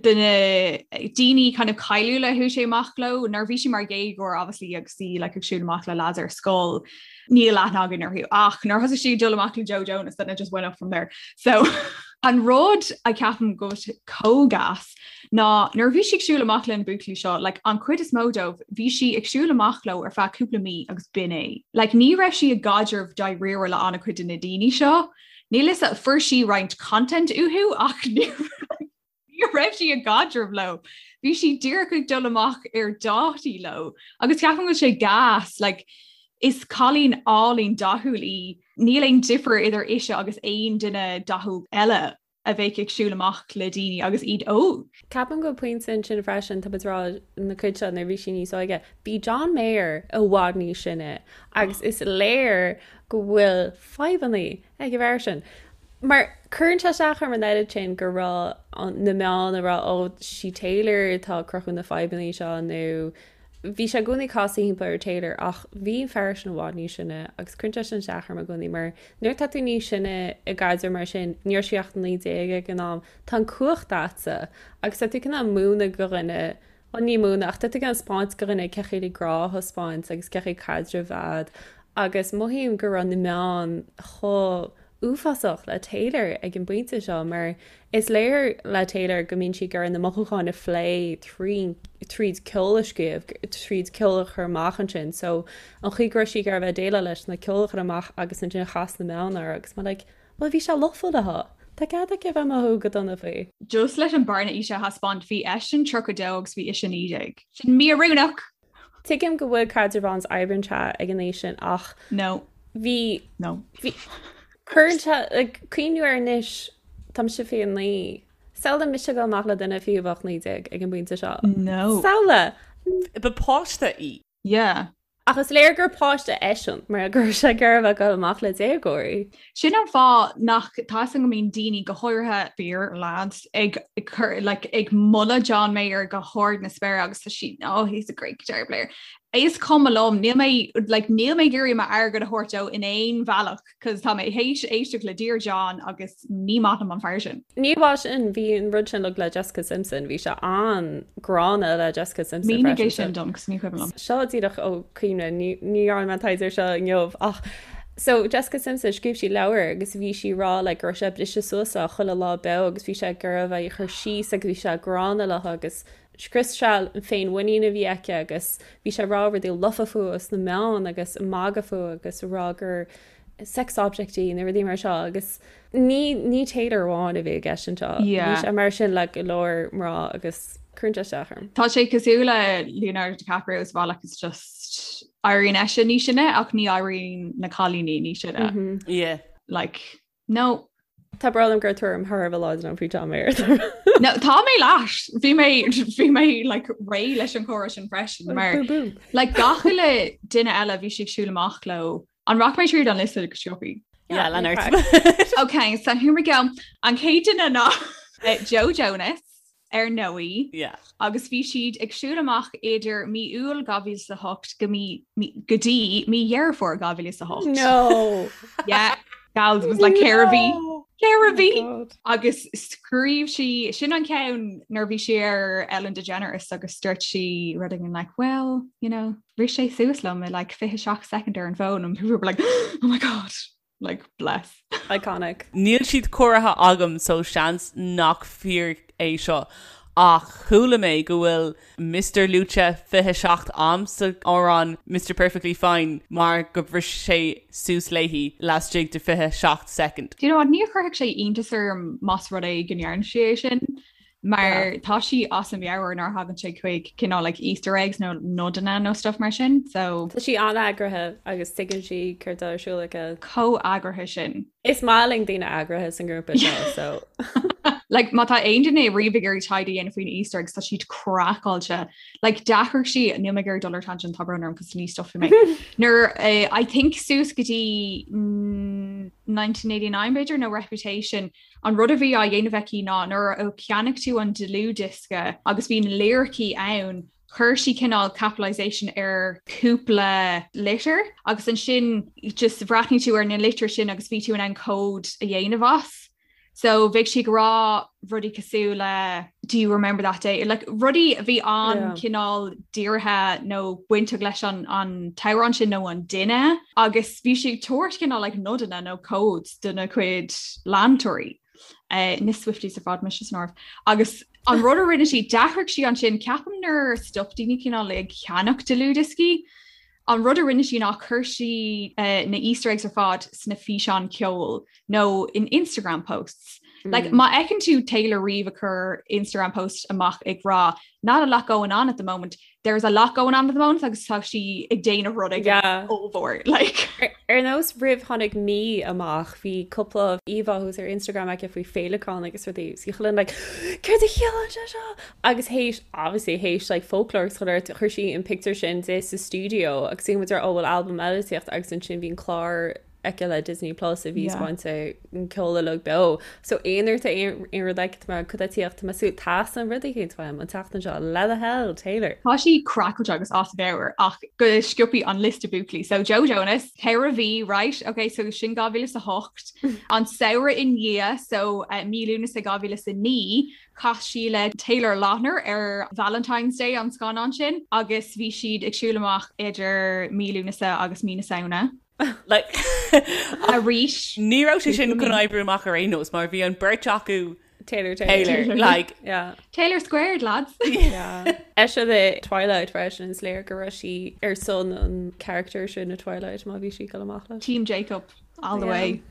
Speaker 3: de na daoine kind of cáiliúla a chuaigh sí amach leo nuair a bhí sí mar dhéagóir obviously agus í like ag siúl amach le lads ar scoil níl aithne againn orthu ach nuair thosaigh sí ag dul amach le Joe Jonas then it just went up from there. So. An rud a ceapaim go bhfuil sé chomh gas ná nuair a bhí sí ag siúl amach le na buachaillí seo, like, an chuid is mó dóibh, bhí sí ag siúl amach leo ar feadh cúpla mí agus b'in é. Like, ní raibh sí i gcaidreamh dáiríre le an-chuid de na daoine seo. Níl 'fhios a'm, fuair sí roinnt content uathu ach ní ní raibh sí i gcaidreamh leo. Bhí sí díreach ag dul amach ar dátaí leo agus ceapaim go bhfuil sé gas, like, is cailín álainn dathúil í, níl aon difear idir ise agus aon duine dathúil eile a bheadh ag siúl amach le daoine agus iad óg.
Speaker 4: Ceapaim go bhfuil pointe ansin freisin, tá muid ag rá na cuid seo nuair a bhí sí níos óige, bhí John Mayer i bhfad níos sine agus is léir go bhfuil fadhbanna ag an bhfear sin. Mar cuireann sé isteach orm an oiread sin go raibh na meáin ag rá ó sí Taylor atá ag cruthú na fadhbanna seo nó bhí sé i gcónaí ag casadh thimpeall ar Taylor ach bhí an fear sin i bhfad níos sine agus cuireann sé sin isteach orm i gcónaí mar nuair atá tú níos sine i gcaidreamh mar sin ní raibh sí ach 19 ag an am tá an cumhacht a'dsa agus tá tú cineál múineadh do dhuine Bhuel, ní múineadh, ach tá tú ag taispeáint do dhuine cén chaoi le grá a thaispeáint agus cén chaoi caidreamh a fhad agus mothaím go raibh na meáin chomh uafásach le Taylor ag an bpointe seo mar is léir le Taylor go mbíonn sí ag iarraidh na mothúcháin a phlé tríd ceol a scríobh, tríd ceol a chur amach ansin so an chaoi go raibh sí ag iarraidh bheith ag déileáil leis ná ceol a chur amach agus ansin chas na meáin uirthi agus mé like Bhuel, bhí sé lofa léi. Tá cead aici a bheith ag mothú go dona faoi.
Speaker 3: Just leis an bearna aoise a thaispeáint, bhí eisean 32 agus bhí ise 19. Sin mí-oiriúnach!
Speaker 4: Tuigim go bhfuil caidreamh ann is oibríonn sé ag an aois sin ach.
Speaker 3: No.
Speaker 4: Bhí.
Speaker 3: No.
Speaker 4: Bhí. Cuireann sé, like, cuimhniú air anois, tá mise 29. Samhlaigh mise ag dul amach le duine fiú a bheadh 19 ag an bpointe seo.
Speaker 3: No.
Speaker 4: Samhlaigh!
Speaker 2: Ba páiste í.
Speaker 3: Yeah.
Speaker 4: Ach is léir gur páiste eisean mar go raibh sé ag iarraidh a bheith ag dul amach le déagóirí.
Speaker 3: Sin an fáth nach tá 'fhios a'm go mbíonn daoine, go háirithe fir, lads, ag cur like ag moladh John Mayer go hard na spéire agus tá siad oh he's a great guitar player. Is cuma liom, níl mé like níl mé ag iarraidh m'airgead a thabhairt dó in aon bhealach. Cos tá mé théis éisteacht le Dear John agus ní maith liom an fear sin.
Speaker 4: Ní amháin sin, bhí an rud sin uilig le Jessica Simpson, bhí sé an-ghránna le Jessica Simpson
Speaker 3: freisin. Mínigh é sin dom, cos ní cuimhin liom.
Speaker 4: Seo díreach ó chuimhne, ní dhearna mé taighde air seo inniu ach so Jessica Simpson, scríobh sí leabhar agus bhí sí ag rá like go raibh sé ag briseadh suas léi chuile lá beo agus bhí sé ag iarraidh a bheith ag cur síos agus bhí sé gránna léi agus scrios sé an féinmhuinín a bhí aici agus bhí sé ag rá rudaí lofa fúithi sna meáin agus ag magadh fúithi agus ag rá gur sex object í nó rudaí mar seo agus ní ní Taylor amháin a bhí i gceist anseo.
Speaker 3: Bhí
Speaker 4: sé mar sin le go leor mná agus cuireann sé isteach
Speaker 3: orm. Tá sé cosúil le Leonardo DiCaprio sa bhealach is just éiríonn eisean níos sine ach ní éiríonn na cailíní níos
Speaker 2: sine.
Speaker 3: Yeah. Like No.
Speaker 4: Tá brón orm gur tuairim thar a bheith láidir agam faoi John Mayer.
Speaker 3: No, tá mé leat. Bhí mé bhí mé like, réidh leis an chomhrá sin freisin mar
Speaker 4: Boom, boom.
Speaker 3: like, gach uile duine eile bhí sí ag siúl amach leo. An rachaidh mé tríd an liosta go sciobtha?
Speaker 2: Yeah, lean ort.
Speaker 3: Ok, so here we go. An chéad duine ná eh, Joe Jonas ar ndóigh.
Speaker 2: Yeah.
Speaker 3: Agus bhí siad ag siúl amach idir mí Iúil 2008 go mí, mí, go dtí mí Dheireadh Fómhair 2008.
Speaker 4: No.
Speaker 3: Yeah, gals, it was like ceithre mhí.
Speaker 4: No.
Speaker 3: Ceithre mhí.
Speaker 4: Oh God.
Speaker 3: Agus scríobh sí, sin an ceann nuair a bhí sí ar Ellen DeGeneres agus dúirt sí rud éigin like, well, you know, bhris sé suas liom i like 27 second ar an bhfón and people were like, oh my God. Like, bless.
Speaker 4: Iconic.
Speaker 2: Níl siad cóirithe agam so seans nach fíor é seo ach chuala mé go bhfuil Mister luaite 27 am sa amhrán Mister Perfectly Fine mar go bhris sé suas léi laistigh de 27 soicind.
Speaker 3: Do you know what, ní chuirfeadh sé iontas orm más rud é go ndearna sí é sin. Mar tá sí as a meabhair nuair a thagann sé chuig cineál like Easter eggs nó nodanna nó stuff mar sin, so.
Speaker 4: Tá sí an-eagraithe agus tuigeann sí céard atá ar siúl aici.
Speaker 3: Chomh eagraithe sin.
Speaker 4: Is maith linn daoine eagraithe san grúpa seo, so.
Speaker 3: Like má tá aon duine riamh ag iarraidh taighde a dhéanamh faoin Easter eggs tá siad craiceáilte. Like d'athraigh sí, níl mé ag iarraidh dul ar tangent, tá brón orm cos ní stopfaidh mé. Nuair eh, I think suas go dtí 1989 b'fhéidir nó Reputation, An rud a bhí á dhéanamh aici ná nuair a cheannaigh tú an dlúthdhiosca agus bhí na liricí ann, chuir sí cineál capitalisation ar cúpla litir agus ansin just bhreathnaigh tú ar na litir sin agus bhí tú in ann cód a dhéanamh as. So bheadh sí ag rá rudaí cosúil le do you remember that day? Like rudaí a bhí an-cineál dírithe nó bainteach leis an an t-amhrán sin nó an duine agus bhí sí ag tabhairt cineál like nodanna nó codes dona cuid leantóirí. Na Swifties ar fad mise san áireamh. Agus an rud a rinne sí, d'athraigh sí ansin, ceapaim nuair a stop daoine cineál ag ceannach dlúthdhioscaí, an rud a rinne sí ná chuir sí na Easter eggs ar fad sna físeáin ceoil nó in Instagram posts. Like, má fheiceann tú Taylor riamh ag cur Instagram post amach ag rá not a lot going on at the moment, there's a lot going on at the moment agus tá sí ag déanamh rud ag ollmhór like.
Speaker 4: Ar nós roimh tháinig Me amach bhí cúpla íomhá thuas ar Instagram aici faoi féileacáin agus rudaí agus bhí chuile dhuine like céard a chiallaíonn sé seo? Agus théis obviously théis like Folklore agus chuile shórt chuir sí an pictiúr sin di sa stiúideo agus bhí muid ar oh bhfuil albam eile ag tíocht agus ansin bhí an clár aici le Disney Plus a bhí spáinte an ceol uilig beo. So aon uair tá aon rud aici tá mé cad tá ag tíocht tá mé ag súil teastaíonn rud éicint uaim an tseachtain seo le do thoil Taylor.
Speaker 3: Tá sí craiceáilte agus as a meabhair ach go sciobtha an liosta buachaillí. So Joe Jonas, 4 mhí, right? Ok, so sin 2008. An samhradh i ndiaidh, so uh, mí Lúnasa 2009, Chas sí le Taylor Lautner ar Valentine's Day an scannán sin agus bhí siad ag siúl amach idir mí Lúnasa agus mí na Samhna.
Speaker 2: Like,
Speaker 3: Arís.
Speaker 2: Ní raibh sé sin chun oibriú amach ar aon nós mar bhí an beirt acu
Speaker 4: Taylor Taylor.
Speaker 2: Taylor like
Speaker 4: Yeah.
Speaker 3: Taylor squared, lads.
Speaker 4: Yeah. Ise i Twilight freisin is léir go raibh sí ar son an character sin i Twilight má bhí sí ag dul amach leis.
Speaker 3: Team Jacob all the way.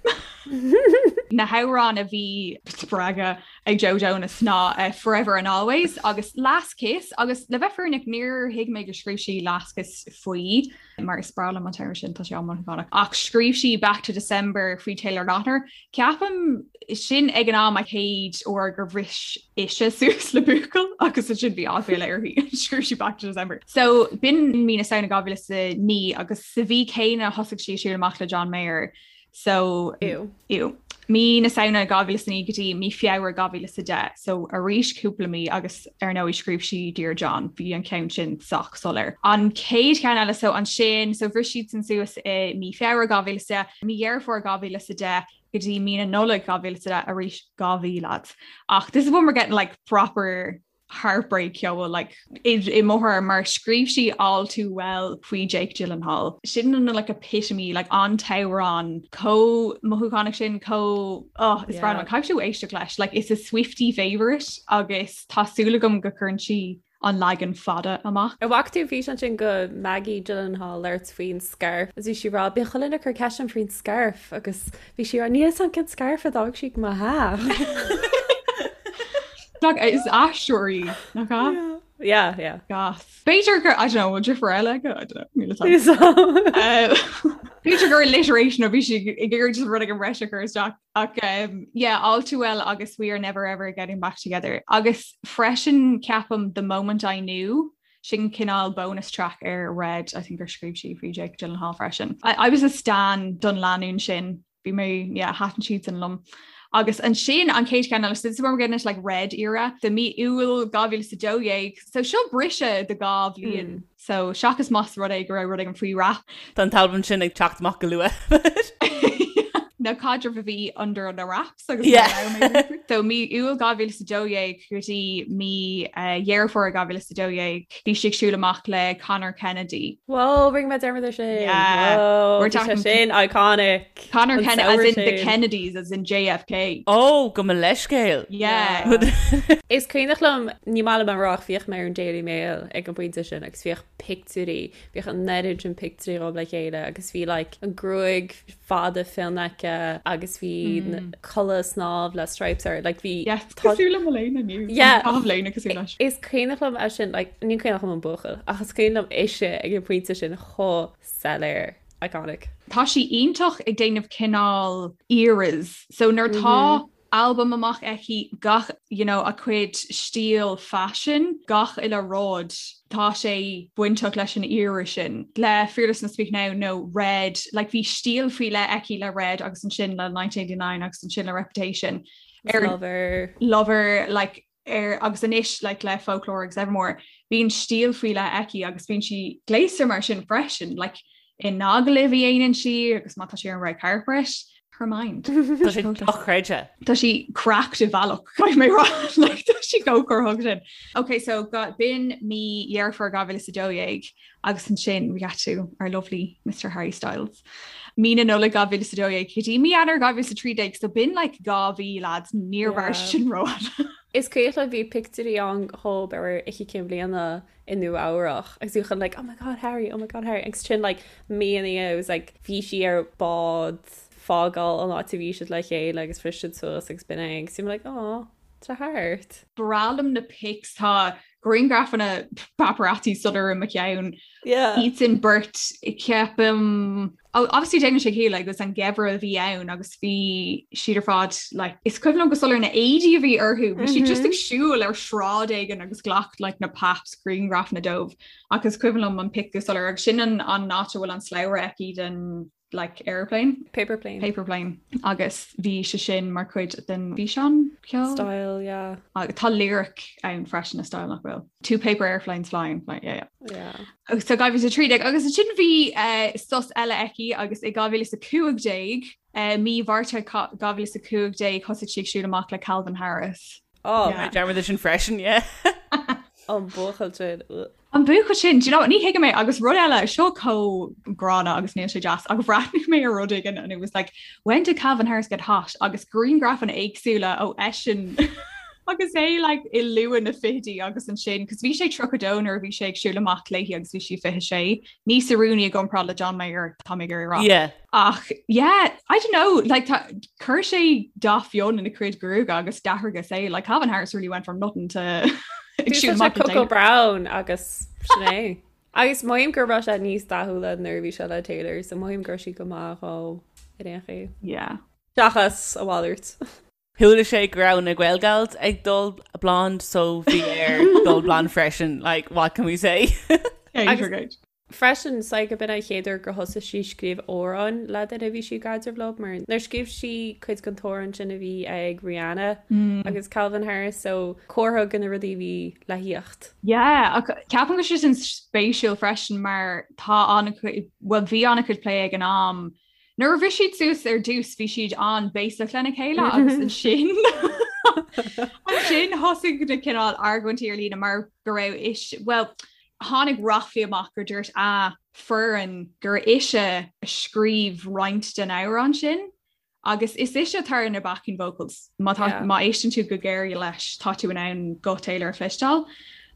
Speaker 3: Na hamhráin a bhí spreagtha ag Joe Jonas ná eh, Forever and Always agus Last Kiss agus le bheith fírinneach níor thuig mé gur scríobh sí Last Kiss faoi mar is breá liom an t-amhrán sin tá sé an-mhothúchánach. Ach scríobh sí Back to December faoi Taylor Lautner. Ceapaim sin ag an am an chéad uair gur bhris ise suas le buachaill agus ansin bhí aiféala uirthi. Scríobh sí Back to December. So b'in mí na Samhna 2009 agus sa mhí céanna thosaigh sí ag siúl amach le John Mayer. So
Speaker 4: Ew.
Speaker 3: Ew. Mí na Samhna 2009 go dtí mí Feabhra 2010, so arís cúpla mí agus ar ndóigh scríobh sí Dear John, bhí an ceann sin sách soiléir. An chéad cheann eile so ansin, so bhris siadsan suas i mí Feabhra 2010, mí Dheireadh Fómhair 2010 go dtí mí na Nollag 2010 arís 2 mhí lads. Ach this is when we're getting like proper heartbreak ceoil like i mo thuairim mar scríobh sí All Too Well faoi Jake Gyllenhaal. Sin an like epitome like an t-amhrán chomh mothúchánach sin chomh oh, is breá liom caithfidh tú éisteacht leis like it's a Swiftie favourite agus tá súil agam go gcuireann sí an leagan fada amach.
Speaker 4: An bhfaca tú an físeán sin de Maggie Gyllenhaal labhairt faoin scarf agus bhí sí ag rá bíonn chuile dhuine ag cur ceist orm faoin scarf agus Bhí sí ag rá níl a fhios agam cén scarf a d'fhág sí ag mo theach.
Speaker 3: Like, is aisteoir í, nach ea?
Speaker 4: Yeah, yeah.
Speaker 3: Gas. B'fhéidir gur, I don't know, bhfuil deirfiúr eile aici? I don't know, níl a fhios agam. B'fhéidir gur alliteration a bhí sí ag iarraidh just rud éigin breise a chur isteach. Ach um, yeah, all too well agus we are never ever getting back together. Agus freisin ceapaim the moment I knew sin cineál bonus track ar Red, I think gur scríobh sí faoi Jake Gyllenhaal freisin. I, I was a stan don lánúin sin, bhí mé, yeah, thaitin siadsan liom. Agus ansin an chéad cheann eile, so this is where we're getting into like Red era, so mí Iúil 2012, so seo briseadh de 2 bhliain. Mm. So seachas más rud é go raibh rud éigin faoi wrap.
Speaker 2: Tá an t-albam sin ag teacht amach go luath.
Speaker 3: Na caidrimh a bhí under the wraps agus yeah. So mí Iúil 2012 go dtí mí eh, Dheireadh Fómhair 2012 bhí sí ag siúl amach le Conor Kennedy.
Speaker 4: Whoa, rinne mé dearmad air sin. Yeah. Whoa, We're talking sin iconic.
Speaker 3: Conor Kennedy as in the Kennedys as in JFK.
Speaker 2: Oh, gabh mo leithscéal.
Speaker 3: Yeah.
Speaker 4: Is cuimhneach liom ní maith liom a rá ach bhíodh mé ar an Daily Mail ag an bpointe sin agus bhíodh pictiúirí, bhíodh an oiread sin pictiúirí dhóibh le chéile agus bhí like an gruaig fada fionn aici agus bhí culaith snámh le stripes air like bhí
Speaker 3: Yes, cosúil le mo léine inniu.
Speaker 4: Yeah.
Speaker 3: Tá léine cosúil leis.
Speaker 4: Is cuimhneach liom é sin like ní cuimhneach liom an buachaill ach is cuimhin liom ise ag an pointe sin chomh soiléir iconic.
Speaker 3: Tá sí iontach ag déanamh cineál eras. So nuair atá albam amach aici, gach, you know, a cuid stíl faisin, gach uile rud, tá sé bainteach leis an era sin. Le Fearless and Speak Now nó Red, like bhí stíl faoi leith aici le Red agus ansin le 1989 agus ansin le Reputation.
Speaker 4: Ar Lover.
Speaker 3: Lover, like, ar agus anois like le Folklore agus Evermore, bíonn stíl faoi leith aici agus bíonn sí gléasta mar sin freisin, like in agallaimh a dhéanann sí agus má tá sí ar an red carpet. Her mind.
Speaker 2: Tá sé dochreidte.
Speaker 3: Tá sí cracked i bhealach caithfidh mé rá like, tá sí chomh corraitheach sin. Ok, so b'in mí Dheireadh Fómhair 2012 agus ansin we got to our lovely Mr Harry Styles. Mí na Nollag 2012 go dtí mí Eanáir 2013 so b'in like 2 mhí lads níor mhair sin rófhada.
Speaker 4: Is cuimhin liom bhí pictiúirí ann dhób ar Oíche Chinn Bliana i Nua Eabhrach agus bhí chun like oh my god Harry oh my god Harry agus sin like mí ina dhiaidh it was like bhí sí ar bád fágáil an áit a bhí siad le chéile agus bhris siad suas agus b'in é agus bhí mé like oh tá thart.
Speaker 3: Breá liom na pics tá grianghrafanna paparazzi soiléir i mo cheann.
Speaker 4: Yeah.
Speaker 3: Iad sin beirt ceapaim oh, obviously déanann sé ciall agus an geimhreadh a bhí ann agus bhí siad ar fad like, is cuimhin liom go soiléir na éadaí a bhí orthu, bhí siad just ag mhm. siúl ar sráid éigin agus ghlac like, na paps grianghrafanna dóibh ach is cuimhin liom an pic go soiléir agus sin an, an áit a bhfuil an slabhra aici den like airplane
Speaker 4: paper plane
Speaker 3: paper plane agus bhí sé sin mar chuid den fhíseán
Speaker 4: ceoil style yeah
Speaker 3: agus tá lyric ann freisin a style nach bhfuil two paper airplanes flying like, yeah,
Speaker 4: yeah. Yeah.
Speaker 3: So 2013 agus ansin bhí uh, sos eile aici agus i 2015 uh, mí Mhárta 2015 thosaigh sí ag siúl amach le Calvin Harris.
Speaker 4: Oh,
Speaker 3: yeah.
Speaker 2: dearmad sin freisin, yeah.
Speaker 4: An buachaill sin.
Speaker 3: An buachaill sin, do you know, ní thuigim é agus rud eile seo chomh gránna agus níl sé deas ach bhreathnaigh mé ar rud éigin and it was like when did Calvin Harris get hot agus grianghrafanna éagsúla ó eisean agus é like i luath na fichidí agus ansin cos bhí sé 32 nuair a bhí sé ag siúl amach léi agus bhí sí 26 níos oiriúnaí i gcomparáid le John Mayer tá mé ag iarraidh a rá.
Speaker 2: Yeah.
Speaker 3: Ach yeah, I don't know, like tá chuir sé dath fionn ina chuid gruaige agus d'athraigh a saol like Calvin Harris really went from nothing to ag siúl amach le
Speaker 4: Coco
Speaker 3: Taylor.
Speaker 4: Brown agus sin é. Agus mothaím go raibh sé níos dathúla nuair a bhí sé le Taylor, so mothaím go raibh sí go maith dhó ar aon chaoi.
Speaker 3: Yeah.
Speaker 4: Seachas a mhalairt.
Speaker 2: Chuala sé go raibh na Gaelgals ag dul blonde so bhí air dul blonde freisin, like what can we say?
Speaker 4: Agus freisin, so go b'in an chéad uair gur thosaigh sí scríobh amhráin le duine a bhí sí i gcaidreamh leo, mar nuair scríobh sí cuid den t-amhrán sin a bhí ag Rihanna agus Calvin Harris, so comhartha de na rudaí a bhí le thíocht.
Speaker 3: Yeah, ach ceapaim go bhfuil sé sin spéisiúil freisin mar tá an-chuid, bhuel bhí an-chuid plé ag an am Nuair a bhris siad suas ar dtús bhí siad an-bhéasach lena chéile agus ansin ansin thosaigh na cineál argóintí ar líne mar go raibh is well tháinig ráflaí amach gur dúirt a foireann gur ise a scríobh roinnt den amhrán sin agus is ise atá ar na backing vocals má tá
Speaker 4: Yeah.
Speaker 3: má éisteann tú go géar leis tá tú in ann guth Taylor a chloisteáil.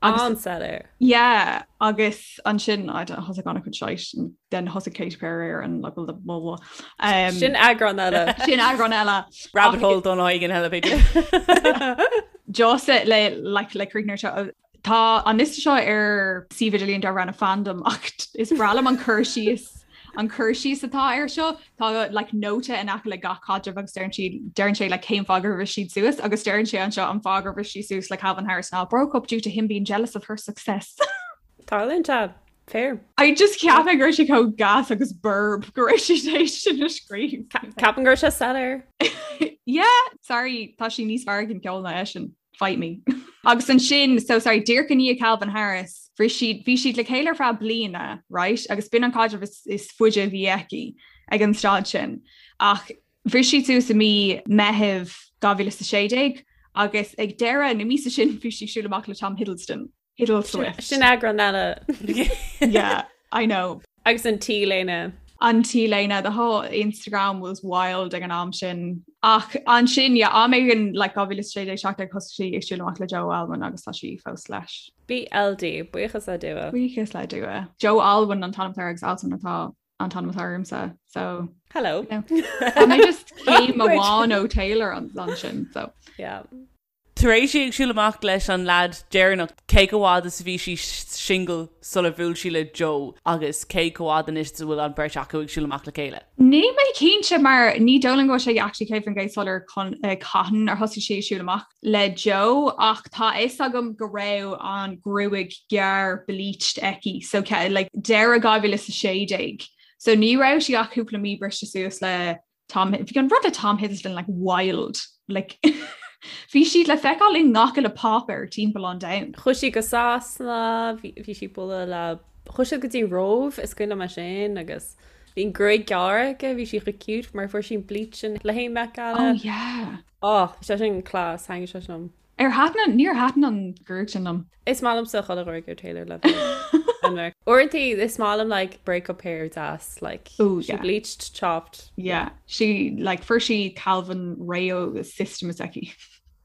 Speaker 3: Agus
Speaker 4: An-soiléir.
Speaker 3: Yeah, agus ansin I don't thosaigh an-chuid shite and then thosaigh Katy Perry ar an like blah blah blah.
Speaker 4: Um, Sin eagrán eile.
Speaker 3: Sin eagrán eile.
Speaker 2: Rabbit hole don éigin eile b'fhéidir.
Speaker 3: Just le like le críochnú seo tá an liosta seo ar suíomh idirlíon darb ainm Fandom ach is breá liom an cur síos an cur síos atá air seo Tá like nóta in aice le gach caidreamh agus deireann siad deireann sé like cén fáth gur bhris siad suas agus deireann sé anseo an fáth gur bhris sí suas le Calvin Harris ná broke up due to him being jealous of her success.
Speaker 4: Tarlaíonn sé. Fair.
Speaker 3: I just ceapaim go raibh sé chomh gas agus borb go raibh sé théis sin a scríobh.
Speaker 4: Ceapaim go raibh sé soiléir.
Speaker 3: Yeah, sorry, tá sí níos fearr ag an gceol ná eisean. Fight me. Agus ansin, so sorry, díreach i ndiaidh Calvin Harris, bhí siad, bhí siad le chéile ar feadh bliana, right? Agus b'in an caidreamh is, is faide a bhí aici ag an staid sin. Ach bhris siad suas i mí Meitheamh 2016 agus ag deireadh na míosa sin bhí sí ag siúl amach le Tom Hiddleston. Hiddleswift.
Speaker 4: Sin eagrán eile.
Speaker 3: Yeah, I know.
Speaker 4: Agus an T-léine.
Speaker 3: An T-léine, the whole Instagram was wild ag an am sin. Ach ansin, yeah, am éigin like 2016 17 thosaigh sí ag siúl amach le Joe Alwyn agus tá sí fós leis.
Speaker 4: BLD, buíochas le Dua.
Speaker 3: Buíochas le Dua. Joe Alwyn an t-ainm atá air agus Alton atá an t-ainm atá ormsa. So
Speaker 4: Hello.
Speaker 3: You know, tá mé just céim amháin ó Taylor ansin. So.
Speaker 4: Yeah.
Speaker 2: Tar éis í ag siúl amach leis an leaid deireanach, cé chomh fhada is a bhí sí singil sular bhuail sí le Joe agus cé chomh fhada anois is a bhfuil an bheirt acu ag siúl amach le chéile?
Speaker 3: Níl mé cinnte mar ní dóigh liom go bhfuil sé actually 100% soiléir cathain ar thosaigh sí ag siúl amach le Joe ach tá a fhios agam go raibh an ghruaig ghearr bleached aici so like deireadh 2016 so ní raibh sí ach cúpla mí briste suas le Tom bhí an rud le Tom Hiddleston like wild like bhí siad le feiceáil i ngach uile páipéar timpeall an domhain.
Speaker 4: Chuaigh sí go Sasana, bhí sí ag bualadh le, chuaigh siad go dtí Róimh, is cuimhin liom é sin agus. Bhí an gruaig gearr aici, bhí sí chomh cute mar fuair sí an bleach sin le haghaidh Met Gala.
Speaker 3: Oh yeah.
Speaker 4: Oh, bhí sé sin class, thaitnigh sé sin liom.
Speaker 3: Ar thaitin, níor thaitin an ghruaig sin liom.
Speaker 4: Is maith liomsa chuile ghruaig ar Taylor le bheith. Uaireanta is maith liom like breakup hair deas like
Speaker 3: Ooh,
Speaker 4: she
Speaker 3: yeah.
Speaker 4: bleached, chopped.
Speaker 3: Yeah, she like fuair sí Calvin réidh ó system s'aici.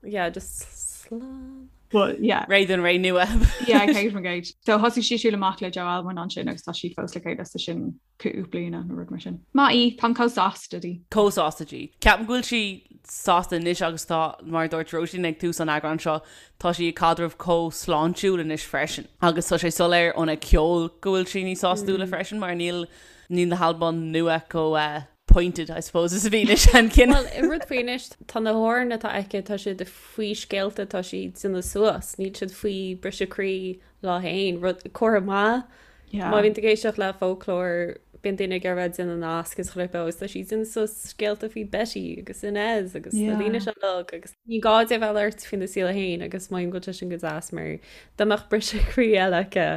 Speaker 4: Yeah, just slán.
Speaker 3: But yeah.
Speaker 2: Réidh don ré nua.
Speaker 3: Yeah, céad faoin gcéad. So thosaigh sí siúl amach le Joe Alwyn ansin agus tá siad fós le chéile so sin cúpla bliana nó rud mar sin. Maith í, táim chomh sásta di.
Speaker 2: Chomh sásta di. Ceapaim go bhfuil sí sásta anois agus tá, mar a dúirt Róisín ag tús an eagráin seo, tá sí i gcaidreamh chomh sláintiúil anois freisin. Agus tá sé soiléir óna ceol go bhfuil sí níos sástúla freisin mar níl níl na halbaim nua chomh pointed, I suppose, is a bhí na seanchinn.
Speaker 4: Bhuel, an rud faoi anois, tá na hamhráin atá aici, tá siad faoi scéalta atá sí ag déanamh suas, níl siad faoi briseadh croí léi féin, rud comhartha maith.
Speaker 3: Yeah.
Speaker 4: Má bhíonn tú ag éisteacht le Folklore, bíonn daoine ag iarraidh bheith ag déanamh nasc is chuile agus tá sí ag déanamh suas scéalta faoi Betty agus Inez agus na daoine seo uilig agus ní gá di a bheith ag labhairt faoina saol féin agus mothaím go bhfuil sé sin go deas mar dá mbeadh briseadh croí eile aici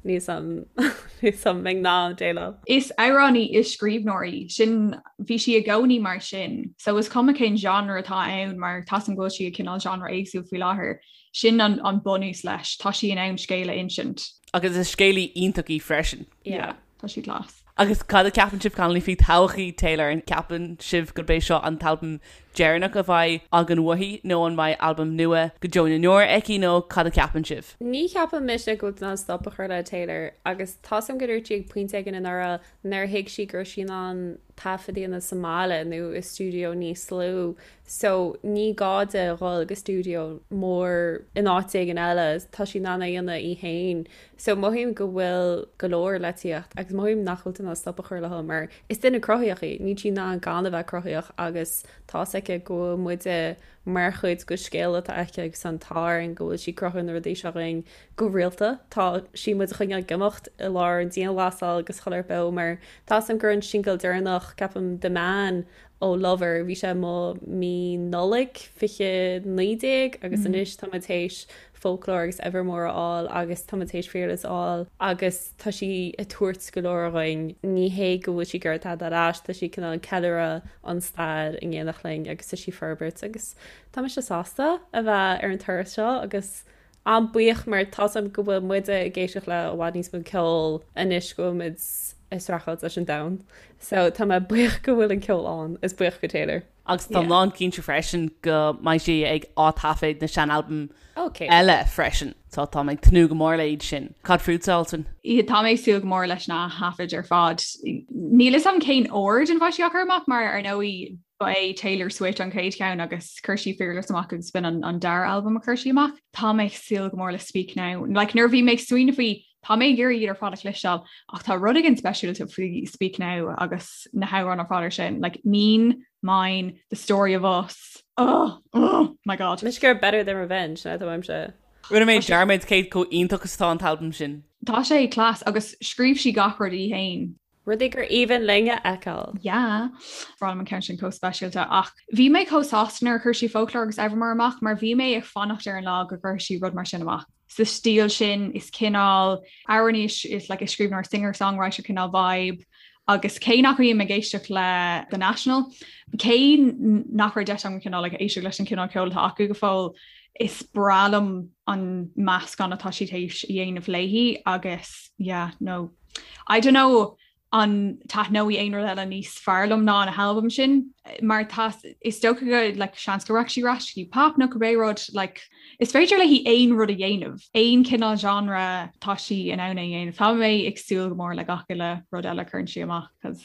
Speaker 4: Níl 's a'm an mbeinn in ann déileáil.
Speaker 3: Is amhránaí is scríbhneoir í. Sin, bhí sí i gcónaí mar sin. So is cuma cén genre atá ann mar tá 's a'm go bhfuil sí ag cineál genre éagsúil faoi láthair. Sin an an bunús leis. Tá sí in ann scéal a insint.
Speaker 2: Agus is scéalaí iontach í freisin.
Speaker 3: Yeah. Tá sí class.
Speaker 2: Agus cad a ceapann sibh Connolly faoi todhchaí Taylor? An ceapann sibh gurb é seo an t-albam deireanach a bheidh againn uaithi nó an mbeidh albam nua go deo na ndeor aici nó cad a ceapann sibh?
Speaker 4: Ní cheapann mise go bhfuil tú in ann stop a chur le Taylor agus tá 's a'm go dúirt sí ag pointe éigin anuraidh nár thuig sí go raibh sí in ann taifead a dhéanamh sa mbaile nó i stiúideo níos lú so ní gá di a dhul go stiúideo mór in áit éigin eile, tá sí in ann é a dhéanamh í féin. So mothaím go bhfuil go leor le tíocht agus mothaím nach bhfuil tú in ann stop a chur léi mar is duine cruthaíoch í, níl sí in ann gan a bheith cruthaíoch agus tá's aici go bhfuil muide mar chuid de scéal atá aici agus tá an t-ádh orainn go bhfuil sí ag cruthú na rudaí seo dhúinn go rialta. Tá sí muid a choinneáil ag imeacht i lár an dianghlasáil agus chuile shórt beo mar tá's a'm gur an singil deireanach, ceapaim, The Man ó Lover, bhí sé amuigh mí Nollaig 2019 agus anois tá muid théis Folklore agus Evermore a fháil agus tá muid théis Fearless a fháil agus tá sí ag tabhairt go leor dhúinn. Ní hé go bhfuil sí ag iarraidh tada ar ais, tá sí cineál ag ceiliúradh an stair in éineacht linn agus tá sí ag forbairt agus tá mise sásta a bheith ar an turas seo agus an-buíoch mar tá's a'm go bhfuil muide ag éisteacht le i bhfad níos mó ceoil anois go bhfuil muid ag streachailt leis an domhan. So tá mé buíoch go bhfuil an ceol ann, is buíoch go Taylor.
Speaker 2: Agus táim lán cinnte freisin go mbeidh sí ag ath-taifead na sean-albaim eile freisin. So tá mé ag tnúth go mór le iad sin. Cad fútsa, Alswyn?
Speaker 3: Tá mé ag súil go mór leis na thaifid ar fad. Níl fhios a'm cén ord ina mbeidh sí á chur amach mar ar ndóigh ba é Taylor Swift an chéad cheann agus chuir sí Fearless amach agus b'in an, an dara albam a chuir sí amach. Tá mé ag súil go mór le Speak Now. Like, nuair a bhí mé ag smaoineamh faoi tá mé ag iarraidh iad ar fad a chloisteáil ach tá rud éigin speisialta faoi Speak Now agus na hamhráin ar fad ar sin. Like, Mean, Mine, The Story of Us. Oh, oh my God.
Speaker 4: Mise gur Better Than Revenge ná tá
Speaker 2: Rinne mé dearmad cé chomh iontach is atá an t-albam sin.
Speaker 3: Tá sé class agus scríobh sí gach rud í féin.
Speaker 4: Rudaí gur aoibhinn linn a fheiceáil.
Speaker 3: Yeah. Bhí an ceann sin chomh speisialta ach bhí mé chomh sásta nuair a chuir sí Folklore agus Evermore amach mar bhí mé ag fanacht ar an lá go gcuirfidh sí rud mar sin amach. Sa stíl sin is cineál amhránaí is like a scríbhneoir singer-songwriter cineál vibe agus cé nach mbím ag éisteacht le The National, cé nach raibh deis agam cineál like éisteacht leis an cineál ceoil atá acu go fóill, is breá liom an meascán atá sí théis a dhéanamh léi agus yeah, no I don't know an taitneoidh aon rud eile níos fearr liom ná na halbaim sin mar tá is dócha go like, seans go rachaidh sí ar ais go dtí pop nó cibé rud like, is féidir léi aon rud a dhéanamh aon cineál genre tá sí in ann é a dhéanamh. Tá mé ag súil go mór le gach uile rud eile a chuireann sí amach cos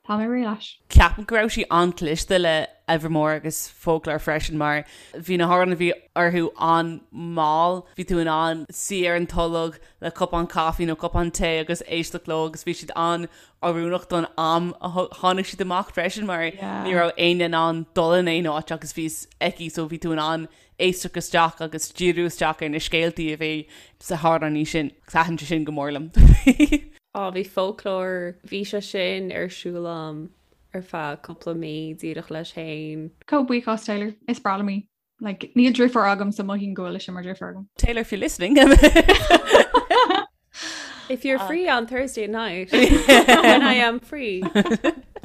Speaker 3: tá mé réidh leis.
Speaker 2: Ceapaim go raibh sí an-chliste le Evermore agus Folklore freisin mar bhí na hamhráin a bhí orthu an-mhall, bhí tú in ann suí ar an tolg le cupán caife nó cupán tae agus éisteacht leo agus bhí siad an-oiriúnach don am a tháinig siad amach freisin mar ní raibh éinne in ann dul in aon áit agus bhí fhios aici so bhí tú in ann éisteacht isteach agus díriú isteach ar na scéaltaí a bhí sna hamhráin sin. Thaitin sé sin go mór liom.
Speaker 4: Á, bhí Folklore, bhí sé sin ar siúl a'm ar feadh cúpla mí díreach leis féin.
Speaker 3: Chomh buíoch as Taylor, is breá liom í. Like, níl driofúr agam so mothaím go bhfuil mise mar driofúr agam.
Speaker 2: Taylor, if you're listening.
Speaker 4: If you're free on Thursday night when I am free.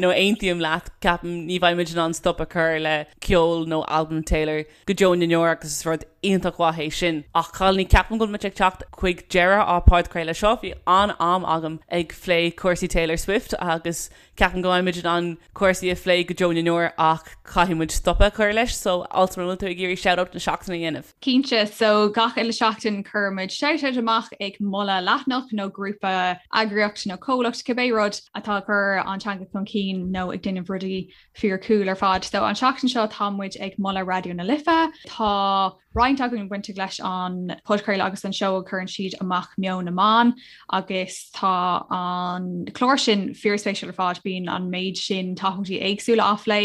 Speaker 2: No aontaím leat, ceapaim ní bheidh muid in ann stop a chur le ceol nó albam Taylor go deo na ndeor agus is rud iontach mhaith é sin. Ach cailíní, ceapaim go bhfuil muid ag teacht chuig deireadh ár podchraoladh seo. Bhí an-am agam ag phlé cúrsaí Taylor Swift agus ceapaim go mbeidh muid in ann cúrsaí a phlé go deo na ndeor ach caithfidh muid stop a chur leis. So, Alswyn, an bhfuil tú ag iarraidh shout-out na seachtaine a dhéanamh?
Speaker 3: Cinnte, so gach uile seachtain cuireann muid shout-out amach ag moladh leathanach nó grúpa, eagraíocht nó comhlacht, cibé rud atá ag cur an teanga chun cinn nó ag déanamh rudaí fíor cool ar fad. So an tseachtain seo tá muid ag moladh Raidió na Life. Tá roinnt againn bainteach leis an podchraoladh agus an seó a chuireann siad amach Meon na mBan agus tá an clár sin fíorspéisiúil ar fad, bíonn an méid sin topaicí éagsúla á phlé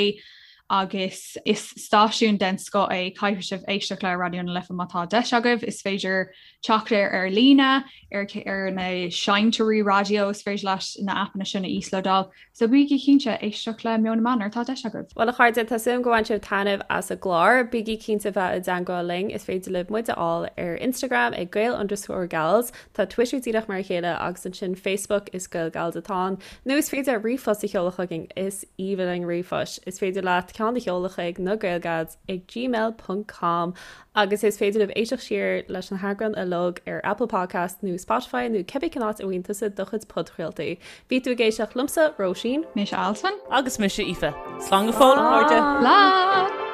Speaker 3: agus is stáisiún den scoth é, caithfidh sibh éisteacht le Raidió na Life má tá deis agaibh. Is féidir teacht air ar líne, ar ar na seinnteoirí raidió, is féidir leat na aipeanna sin a íoslódáil. So bígí cinnte éisteacht le Meon na mBan nuair atá deis agaibh.
Speaker 4: Bhuel a chairde, tá súil agam go bhain sibh taitneamh as an gclár. Bígí cinnte bheith i dteangmháil linn. Is féidir libh muid a fháil ar Instagram ag Gael underscore Gals, tá Twitter díreach mar a chéile agus ansin Facebook is Gael Gals atá ann. Nó is féidir ríomhphost a sheoladh chugainn, is aoibhinn linn ríomhphoist. Is féidir leat ceann a sheoladh chuig na Gaelgals ag gmail ponc com agus is féidir libh éisteacht siar leis na heagráin uilig ar Apple Podcast nó Spotify nó cibé cén áit a bhfaigheann tusa do chuid podchraoltaí. Bhí tú ag éisteacht liomsa, Róisín.
Speaker 3: Mise Alswyn.
Speaker 2: Agus mise Aoife. Slán go fóill, a chairde!
Speaker 3: Slán!